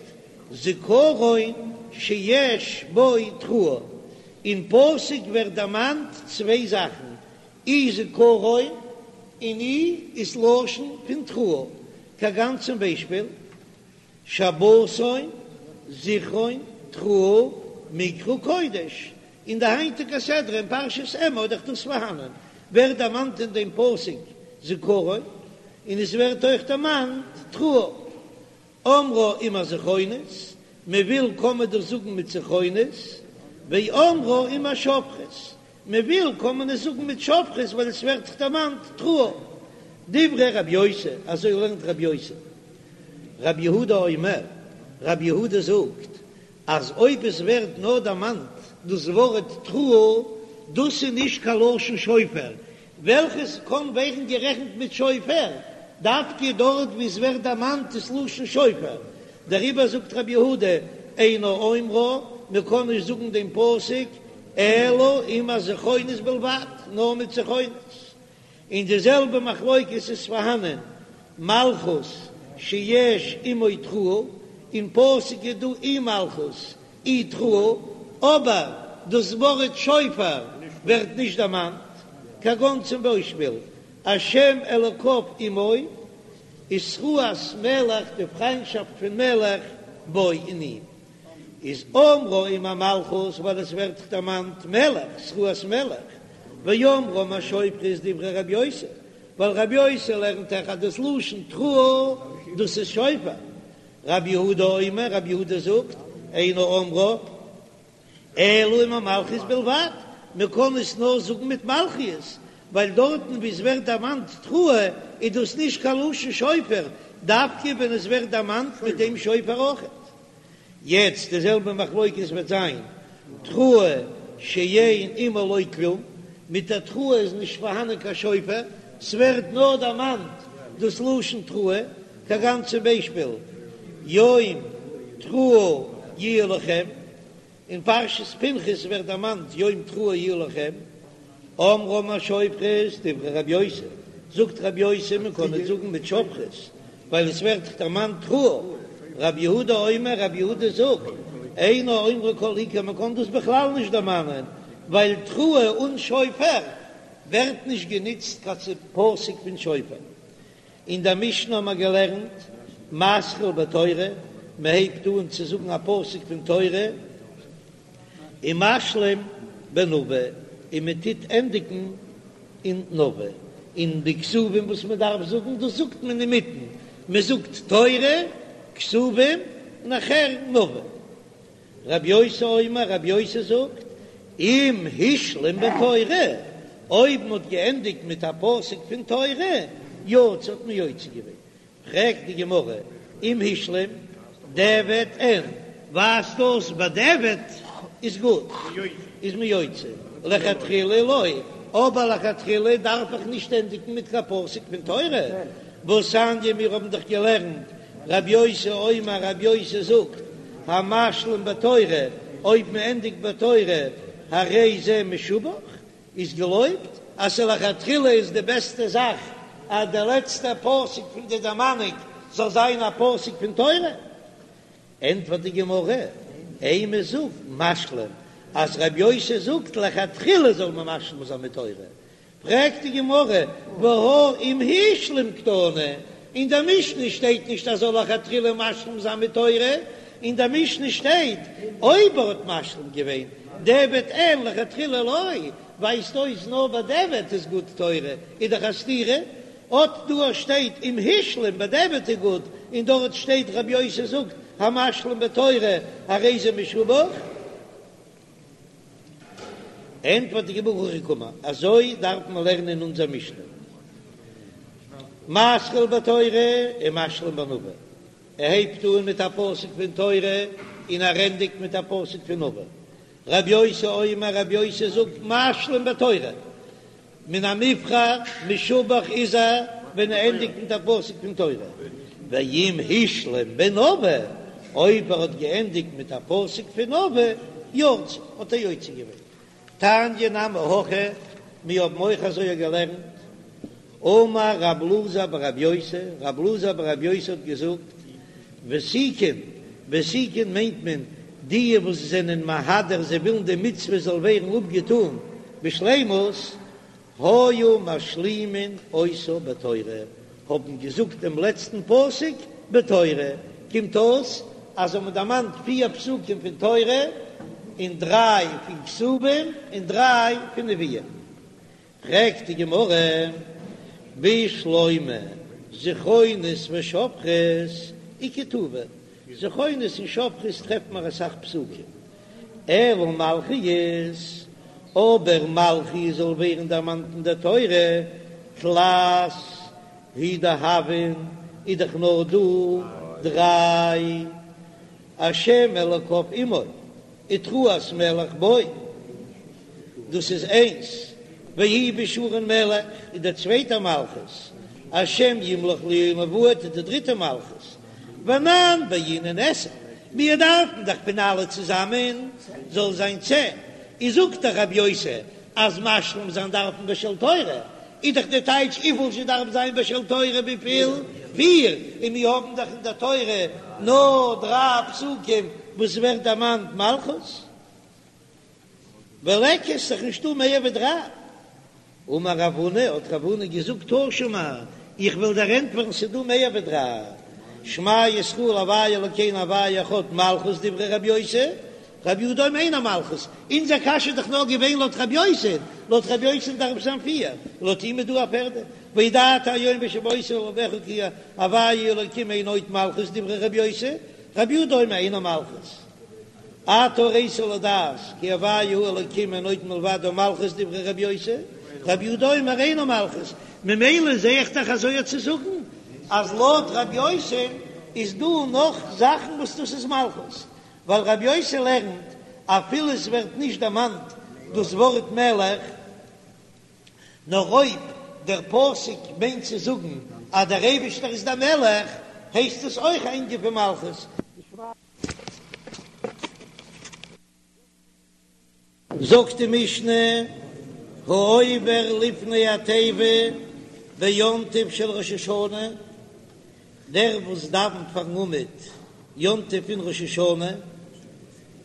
זכרון שיש בו תרועה, אין פסוק ווערט דערמאנט צוויי זאכן, אי זכרון און אי איז לשון פון תרועה, כגון צום ביישפיל שבתון, זכרון, תרועה, מקרא קודש, אין די היינטיגע סדרה אין פרשת אמור איז דאך דאס פארהאנען, ווערט דערמאנט אין דעם פסוק זכרון, און עס ווערט אויך דערמאנט תרועה. אומרה עם הזכרונות, מען וויל קען מען דאס זאגן מיט זכרונות, ואומרה עם השופרות, מען וויל קען מען עס זאגן מיט שופרות ווייל עס ווערט דאך דערמאנט תרועה. דברי רב יוסי, אזוי לערנט רב יוסי. רב יהודה אומר, רב יהודה זאגט אז אויב עס ווערט נאר דערמאנט דאס ווארט תרועה, דאס איז נישט קיין לשון שופר, וועלכעס קען ווערן גערעכנט מיט שופר, דווקא דארט וואו עס ווערט דערמאנט דאס לשון שופר, דעריבער זאגט רבי יהודה, אינו אומרה, מען קען נישט זאגן דעם פסוק אלא עם הזכרונות בלבד, נאר מיט זכרונות. און די זעלבע מחלוקת איז פארהאנען מלכות שיש עמו תרועה, אין פסוק איז דא אי מלכות אי תרועה, אבער דאס ווארט שופר ווערט נישט דערמאנט, כגון צום ביישפיל השם אלוקיו עמו, ותרועת מלך די פריינטשאפט פון מלך בו אין אים. איז אומרה עם המלכות ווייל עס ווערט דערמאנט מלך, תרועת מלך, ואומרה עם השופרות דברי רבי יוסי, ווייל רבי יוסי לערנט דאך אז דאס לשון תרועה דאס איז שופר, רבי יהודה אומר, רבי יהודה זאגט, אינו אומרה אלא עם המלכיות בלבד, מען קען עס נאר זאגן מיט מלכיות, ווייל דארטן וואו עס ווערט דערמאנט תרועה איז דאס נישט קיין לשון שופר, דווקא ווען עס ווערט דערמאנט מיט דעם שופר אויכעט. יעצט די זעלבע מחלוקת וועט זיין תרועה שאין עמה לא כלום, מיט א תרועה איז נישט פארהאנען קיין שופר, ס'ווערט נאר דערמאנט דאס לשון תרועה, כגון צום ביישפיל יום תרועה יהיה לכם, אין פרשת פנחס ווערט דערמאנט יום תרועה יהיה לכם, אומרה עם השופרות דברי רבי יוסי, זאגט רבי יוסי מען קען עס זאגן מיט שופרות ווייל עס ווערט דערמאנט תרועה, רבי יהודה אומר רבי יהודה זאגט אינו אומרה כל עיקר מען קען דאס בכלל נישט דערמאנען ווייל תרועה אן שופר ווערט נישט גענוצט קיין פסוק פון שופר. אין דער משנה האבן מיר געלערנט, מתחיל בתורה, מען הייבט אן צו זאגן א פסוק פון תורה, ומשלים בנביא, און מען טוט ענדיגן אין נביא, און די כתובים וואס מען דארף זאגן, דאס זאגט מען אינמיטן, מען זאגט תורה, כתובים, נאכער נביא. רבי יוסי אומר, רבי יוסי זאגט, אם השלים בתורה, אויב מען האט געענדיגט מיט א פסוק פון תורה, יצא האט מען יוצא געווען. פרעגט די גמרא, אם השלים, דיעבד אין, ווייזט אויס בדיעבד איז גוט, איז מען יוצא, לכתחילה לא, אבער לכתחילה דארף איך נישט ענדיגן מיט קיין פסוק פון תורה, והתניא מיר האבן דאך געלערנט רבי יוסי אומר רבי יוסי זאגט, המשלים בתורה, אויב מען ענדיגט בתורה, הרי זה משובח, איז געלויבט, אז לכתחילה איז די בעסטע זאך אז דער לעצטער פסוק פון די דערמאנונג זאל זיין א פסוק פון תורה. ענטפערט די גמרא, אימא זאג משלים, אז רבי יוסי זאגט לכתחילה זאל מען משלים זיין מיט תורה, פרעגט די גמרא, והא אם השלים קתני, אין דער משנה שטייט נישט אז זאל לכתחילה משלים זיין מיט תורה, אין דער משנה שטייט אויב ער האט משלים געווען, דיעבד אין לכתחילה לא, ווייזט אויס נאר בדיעבד איז גוט תורה, איז דאך א סתירה, אט דא שטייט אם השלים בדיעבד איז גוט, און דארט שטייט רבי יוסי זאגט המשלים בתורה הרי זה משובח. ענטפערט די גמרא הכי קאמר, אזוי דארף מען לערנען אין אונזער משנה, מתחיל בתורה ומשלים בנביא, ער הייבט אן מיט א פסוק פון תורה און ער ענדיגט מיט א פסוק פון נביא, רבי יוסי אומר, רבי יוסי זאגט משלים בתורה, מן המובחר משובח איז ער ווען ער ענדיגט מיט א פסוק פון תורה, ואם השלים בנביא, אויב ער האט געענדיגט מיט א פסוק פון נביא, יצא, האט ער יוצא געווען. תניא נמי הכי, מיר האבן אויך אזוי געלערנט. אמר רב אלעזר ברב יוסי, רב אלעזר ברב יוסי האט געזאגט, ותיקין, ותיקין מיינט מען די וואס זענען מהדר זיי ווילן די מצוה זאל ווערן אפגעטאן בשלימות, היו משלימין אותה בתורה, האבן געזאגט דעם לעצטן פסוק בתורה, קומט אויס אז האבן דערמאנט פיר פסוקים פון תורה, און דריי פון כתובים און דריי פון נביאים. פרעגט די גמרא, בשלמא זכרונות ושופרות איכא טובא, זכרונות און שופרות טרעפט מען אסאך פסוקים, אלא מלכיות, אבער מלכיות זאל ווערן דערמאנט אין דער תורה, תלת הוא דהויין, איז דאך נאר דא דריי, השם אלוקיו עמו. ותרועת מלך בו, דאס איז איינס, ויהי בישורון מלך איז דער צווייטער מלכות, השם ימלוך לעולם ועד איז די דריטע מלכות, ואנן בעינן עשר, מיר דארפן דאך פון אלע צוזאמען זאל זיין צען, איז זאגט דאך רבי יוסי אז משלים זיין דארף מען בשל תורה, איז דאך די טייטש וויפיל זשע דארף זיין בשל תורה וויפיל? פיר, און מיר האבן דאך אין דער תורה נאר דריי פסוקים וואס ווערט דערמאנט מלכות, וליכא איז דאך נישטא מער ווי דריי. אמר רב הונא, האט רב הונא געזאגט תא שמע, איך וועל דיר ענטפערן ס'איז דא מער ווי דריי, שמע ישראל הוי' אלקינו הוי' אחד מלכות דברי רבי יוסי, רבי יהודה אומר אינה מלכות, אונזער קשיא איז דאך נאר געווען לויט רבי יוסי, לויט רבי יוסי דארף זיין פיר, לויט אים איז דא א פערדע, וידעת היום והשבות אל לבבך כי הוי' אלוקים אין עוד מלכות דברי רבי יוסי, רבי יהודה אומר אינה מלכות. אתה הראת לדעת כי הוי' הוא האלוקים אין עוד מלבדו מלכות דברי רבי יוסי, רבי יהודה אומר אינה מלכות, ממילא זע איך דאך אזוי צו זאגן אז לויט רבי יוסי איז דא נאך זאכן וואס דאס איז מלכות, ווייל רבי יוסי לערנט אפילו עס ווערט נישט דערמאנט דאס ווארט מלך, נאר אויב דער פסוק מיינט צו זאגן אז דער אייבישטער איז דער מלך, הייסט עס אויך א ענין פון מלכות. זאגט די משנה, העובר לפני התיבה ביום טוב של ראש השנה, דער וואס דאווענט פארן עמוד יום טוב פון ראש השנה,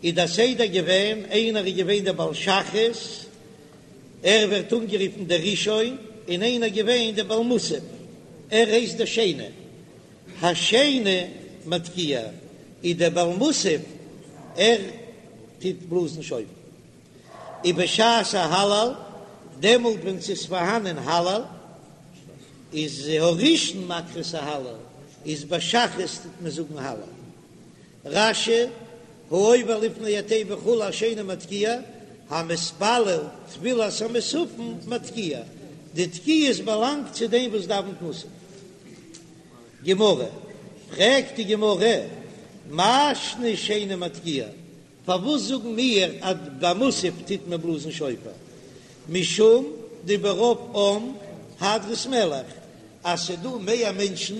איז דער סדר געווען, איינער איז געווען דער בעל שחרית, ער ווערט אנגערופן דער ראשון, און איינער געווען דער בעל מוסף, ער הייסט דער שני. השני מתקיע, איז דער בעל מוסף, ער טוט בלאזן שופר. ובשעת ההלל, דעמאלט ווען ס'איז פארהאנען הלל, איז הראשון מקרא את ההלל, איז ביי שחרית טוט מען זאגן הלל. רש"י, העובר לפני התיבה וכו' השני מתקיע, המתפלל תפילת המוספין מתקיע, די תקיעות באלאנגט צו דעם וואס דאווענט מוסף. גמרא, פרעגט די גמרא, מאי שנא שני מתקיע, פארוואס זאגן מיר אז ביי מוסף טוט מען בלאזן שופר? משום דברוב עם הדרת מלך, אז ס'דא מער מענטשן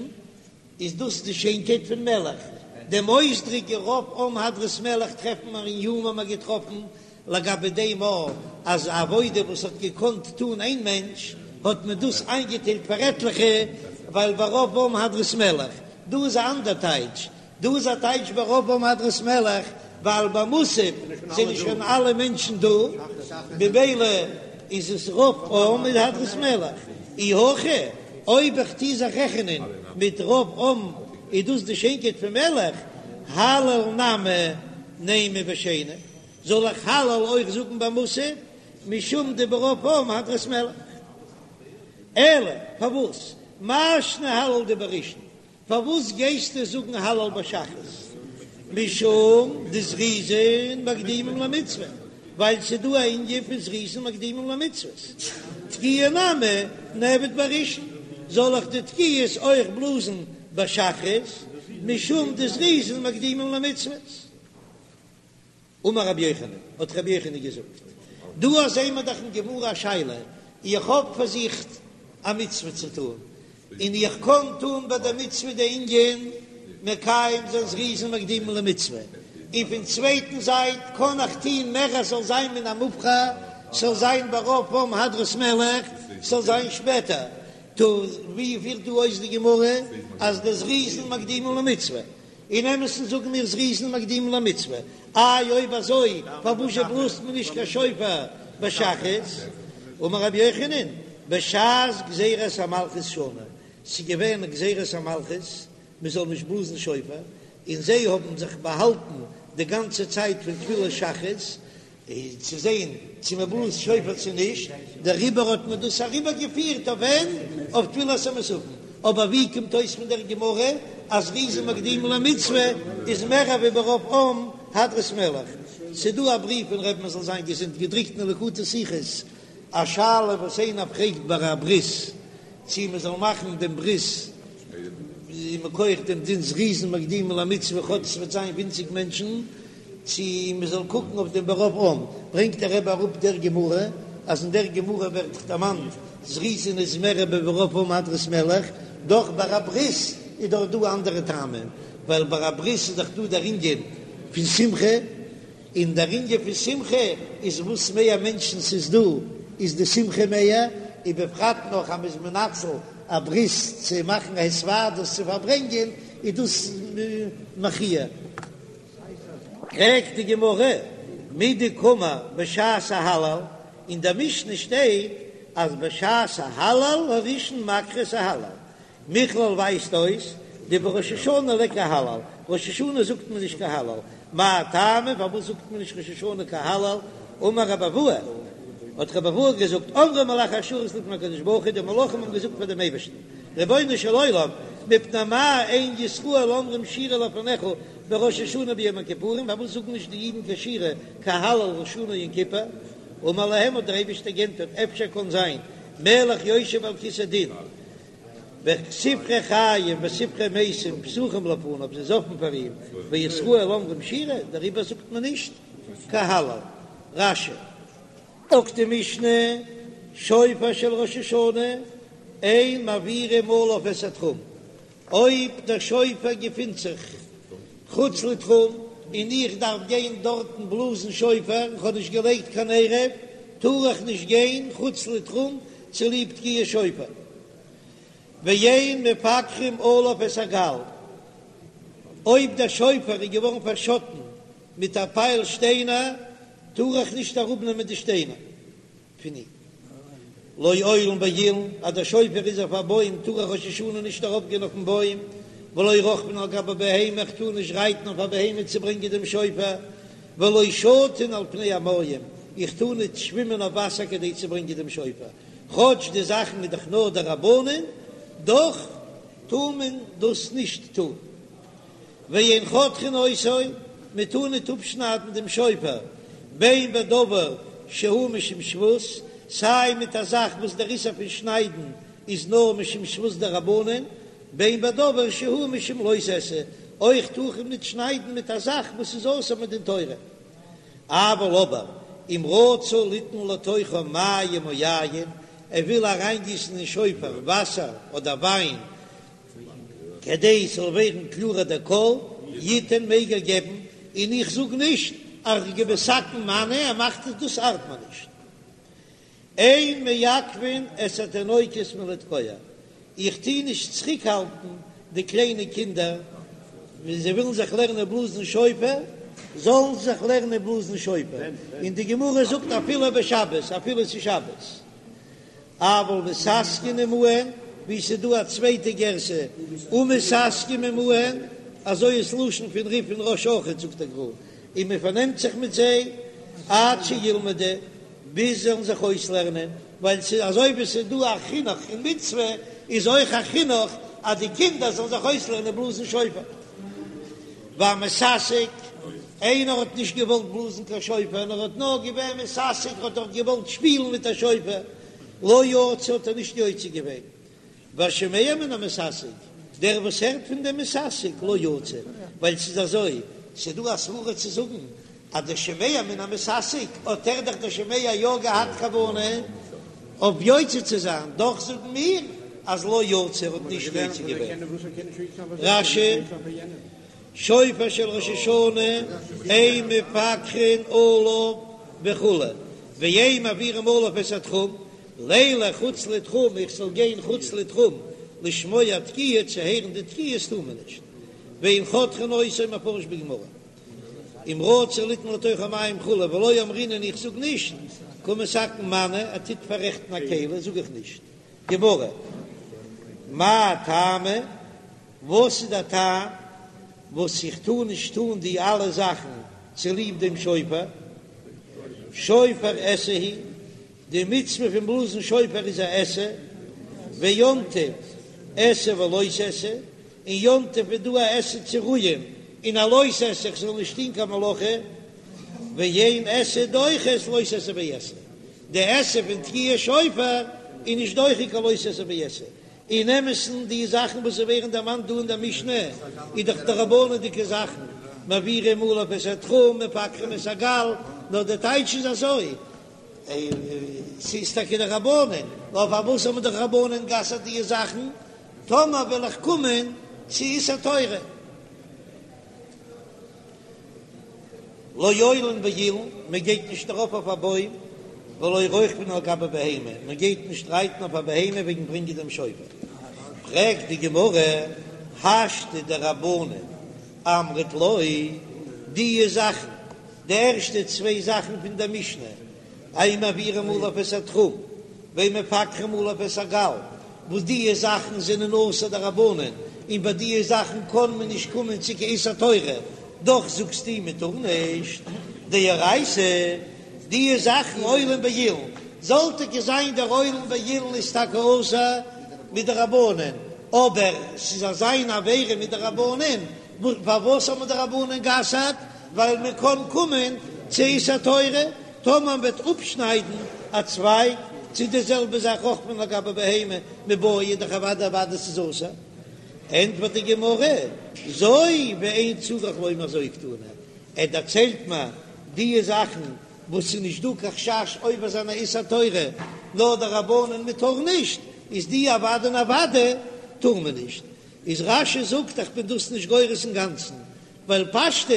איז דאס די שיינקייט פון מלך, דעם אויסדרוק רוב עם הדרת מלך טרעפן מיר אין יומא האבן מיר געטראפן לגבי דעם א אז א עבודה וואס האט געקאנט טון איין מענטש האט מען דאס איינגעטיילט פאר עטליכע ווייל ברוב עם הדרת מלך, דא איז א אנדער טייטש, דא איז א טייטש ברוב עם הדרת מלך ווייל ביי מוסף זענען שוין אלע מענטשן דא ממילא איז עס רוב עם איז הדרת מלך, אי הכי אויב איך טוה זיך רעכענען מיט רוב עם איז דאס די שיינקייט פון מלך, הלל נמי נימא בשני, זאל איך הלל אויך זאגן ביי מוסף משום דברוב עם הדרת מלך? אלא פארוואס מאי שנא הלל דבראשון? פארוואס גייסטו זאגן הלל ביי שחרית? משום דזריזין מקדימים למצוה, ווייל ס'איז דא א ענין פון זריזין מקדימים למצוות. תקיעה נמי נעביד בראשון, זאל איך די תקיעות אויך בלאזן ביי שחרית, משום דזריזין מקדימים למצוות. אמר רבי יוחנן, האט רבי יוחנן געזאגט, דא זעהן מיר דאך אין גמרא א שאלה, איך האב פאר זיך א מצוה צו טון, און איך קען טון ביי דער מצוה די ענין מקיים זיין זריזין מקדימין למצוה, און פון צווייטן זייט קען איך טון מער אז ס'זאל זיין מן המובחר, ס'זאל זיין ברוב עם הדרת מלך, ס'זאל זיין שפעטער. טא ווי פירט דא אויס די גמרא אז די זריזין מקדימין למצוה? אין אמת'ן זאגן מיר זריזין מקדימין למצוה, איי אויב אזוי פארוואזשע בלאזט מען נישט קיין שופר בשחרית? אמר רבי יוחנן, בשעת גזירת המלכות שנו, ס'איז געווען גזירת המלכות מען זאל נישט בלאזן שופר, און זיי האבן זיך באהאלטן די גאנצע צייט פון תפילת שחרית, צו זען צו מען בלאזט שופר צו נישט, דעריבער האט מען דאס אריבער געפירט אויף ווען? אויף תפילת המוספין, אבער ווי קומט אויס פון דער גמרא אז זריזין מקדימין למצוה איז מער ווי ברוב עם הדרת מלך? ס'דא א בריוו פון רבי'ן זאל זיין געזונט געדרוקט אין ליקוטי שיחות א שאלה וואס איינער פרעגט ביי א ברית צו מען זאל מאכן דעם ברית מכח דעם דין זריזין מקדימין למצוה כאטש ס'וועט זיין ווינציג מענטשן, צו מען זאל קוקן אויף דעם ברוב עם, ברענגט דער רבי אראפ דער גמרא, אז אין דער גמרא ווערט דערמאנט זריזין איז מער ווי ברוב עם הדרת מלך, דאך ביי א ברית איז דאך דא אנדערע טעמים, ווייל ביי א ברית איז דאך דא דער ענין פון שמחה, און דער ענין פון שמחה איז וואס מער מענטשן ס'איז דא איז די שמחה מער, ובפרט נאך אז מ'איז מנצל א ברית צו מאכן א התוועדות צו פארברענגען איז דאס מחי'. פרעגט די גמרא, מדקאמר בשעת ההלל, אין דער משנה שטייט אז בשעת ההלל הראשון מקרא את ההלל, מכלל ווייזט אויס דבראש השנה ליכא הלל, ראש השנה זאגט מען נישט קיין הלל, מאי טעמא פארוואס זאגט מען נישט ראש השנה קיין הלל, אמר רבי אבהו, האט רבי אבהו געזאגט, אמרו מלאכי השרת לפני הקדוש ברוך הוא, די מלאכים האבן געזאגט פאר דעם אייבערשטן, רבונו של עולם, מפני מה אין ישראל אומרים שירה לפניך בראש השנה וביום הכיפורים, פארוואס זאגן נישט די אידן קיין שירה קיין הלל ראש השנה יום כיפור, אמר להם האט דער אייבערשטער גענטפערט, אפשר קען זיין מלך יושב על כסא דין, וספרי חיים וספרי מתים פתוחים לפניו, ס'איז אפן פאר אים, וישראל אומרים שירה, דעריבער זאגט מען נישט קיין הלל. רש"י. זאגט די משנה, שופר של ראש השנה, אין מעבירים עליו את התחום, אויב דער שופר געפינט זיך חוץ לתחום און איך דארף גיין דארטן בלאזן שופר, איך האב נישט געלייגט קיין עירוב, טאר איך נישט גיין חוץ לתחום צוליב תקיעת שופר. ואין מפקחין עליו את הגל, אויב דער שופר איז געווארן פארשאטן מיט א פייל שטיינער, טאר איך נישט אראפנעמען די שטיינער פון אים. לא עולין באילן, אז דער שופר איז אויף א בוים טאר איך ראש השנה נישט ארויפגיין אויפן בוים, ולא רוכבין על גבי בהמה, איך טאר נישט רייטן אויף א בהמה צו ברענגען דעם שופר, ולא שטין על פני המים, איך טאר נישט שווימען אויף וואסער כדי צו ברענגען דעם שופר, כאטש די זאכן איז דאך נאר דרבנן, דאך טאר מען דאס נישט טון. ואין חותכין אותו, מען טאר ניט אפשניידן דעם שופר, בין בדבר שהוא משום שבות, סיי מיט א זאך וואס דער איסור פון שניידן איז נאר משום שבות דרבנן, בין בדבר שהוא משום לא תעשה, אויך טאר מען ניט שניידן מיט א זאך וואס איז אסור מדין תורה. אבל אבער אם רצה ליתן לתוכו מים או יין, ער וויל אריינגיסן אין שופר וואסער אדער וויין, כדי ס'זאל ווערן קלארער דער קול, יתן מעג ער געבן, און איך זאג נישט אז כמתקן מנא, ער מאכט עס דאס ארט מיר נישט. אין מעכבין את התינוקות מלתקוע, איך טוה נישט צוריקהאלטן די קליינע קינדער ווען זיי ווילן זיך לערנען בלאזן שופר, זאלן זיי זיך לערנען בלאזן שופר, און די גמרא זאגט אפילו בשבת, אפילו ס'איז שבת. אבל מתעסקין עמהן, ווי ס'איז דא א צווייטע גירסא ומתעסקים עמהן, אזוי איז לשון פון רי"ף און רא"ש אויכעט זאגט דער גר"א, און מען פארנעמט זיך מיט זיי עד שילמדו, ביז זיי זאלן זיך אויסלערנען, ווייל ס'איז אזוי ווי ס'איז דא א חינוך אין מצוה, איז אויך א חינוך אז די קינדער זאלן זיך אויסלערנען בלאזן שופר. והמתעסק, איינער האט נישט געוואלט בלאזן קיין שופר, נאר האט נאר געווען מתעסק, האט דאך געוואלט שפילן מיט א שופר, לא יצא האט ער נישט יוצא געווען. והשומע מן המתעסק, דער וואס הערט פון דעם מתעסק, לא יצא, ווייל ס'איז אזוי, ס'איז דא א סברא צו זאגן אז דער שומע מן המתעסק האט ער דאך דער שומע יא געהאט כוונה אויף יוצא צו זיין, דאך זאגן מיר אז לא יצא ער האט נישט יוצא געווען. רש"י, שופר של ראש השנה אין מפקחין עליו וכו', ואין מעבירים עליו את התחום. לילך חוץ לתחום, איך זאל גיין חוץ לתחום לשמוע תקיעה, צו הערן די תקיעות טאר מען נישט, ואין חותכין אותו מפרש בגמרא, אם רצה ליתן לתוכו מים כו' ולא אמרינן איך זאג נישט, קא מתקן מנא, ער טוט פאררעכטן א כלי זאג איך נישט, גמרא, מאי טעמא, וואס איז דער טעם וואס איך טאר נישט טון די אלע זאכן צוליב דעם שופר? שופר עשה הוא, די מצוה פון בלאזן שופר איז א עשה, ויום טוב עשה ולא תעשה, און יום טוב איז דא א עשה צו רוען און א לא תעשה איך זאל נישט טון קיין מלאכה, ואין עשה דוחה את לא תעשה ועשה, די עשה פון תקיעת שופר איז נישט דוחה קיין לא תעשה ועשה, אין אמת'ן די זאכן וואס ווערן דערמאנט דא אין דער משנה איז דאך דרבנן'דיגע זאכן, מעבירים עליו את התחום, מפקחין את הגל, נאר דער טייטש איז אזוי, ס'איז טאקע דרבנן, נאר פארוואס האבן די רבנן גע'אסר'ט די זאכן? טאמער וועל איך קומען צו איסור תורה. לא עולין באילן, מען גייט נישט ארויף אויף א בוים, ולא רוכבין על גבי בהמה, מען גייט נישט רייטן אויף א בהמה וועגן ברענגען דעם שופר. פרעגט די גמרא, השתא דרבנן אמרת לא, די זאכן, די ערשטע צוויי זאכן פון דער משנה, אין מעבירים עליו את התחום, ואין מפקחין עליו את הגל, וואס דיע זאכן זענען אסור דרבנן, און ביי דיע זאכן קען מען נישט קומען צו קיין איסור תורה, דאך זאגסטו מען טאר נישט, דאורייתא, דיע זאכן עולין באילן, זאל טאקע זיין דער עולין באילן איז טאקע אסור מדרבנן, אבער ס'איז אזא איין עבירה מדרבנן, פארוואס האבן די רבנן גע'אסר'ט? ווייל מען קען קומען צו איסור תורה, טאמער מען וועט אפשניידן א צווייג, צו די זעלבע זאך רוכבין על גבי בהמה מיבעיא איז דאך אוודאי אוודאי ס'איז אסור. ענטפערט די גמרא, זו ואין צריך לומר זו קתני, ער דערציילט מיר די זאכן וואס ס'איז נישט דא קיין חשש עובר זיין א איסור תורה, נאר דרבנן מען טאר נישט, איז די אוודאי און אוודאי טאר מען נישט. איז רש"י זאגט איך בין דאס נישט גורס אינגאנצן, ווייל פשטות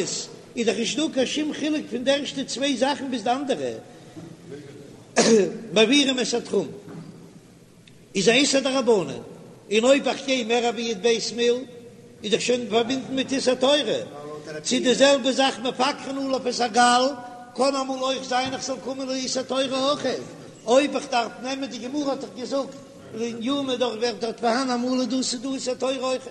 איז דאך נישט דא קיין שום חילוק פון די ערשטע צוויי זאכן ביז די אנדערע, מעבירים את התחום איז א איסור דרבנן, און אויב איך גיי מער ווי י"ב מיל איז דאך שוין פארבינדן מיט איסור תורה, צו די זעלבע זאך מפקחין עליו את הגל, קען אמאל אויך זיין איך זאל קומען לאיסור תורה אויך, אויב איך דארף נעמען די גמרא האט דאך געזאגט אין יומא דאך ווערט דארט פארהאן אמאל איז דא ס'דא איסור תורה אויך.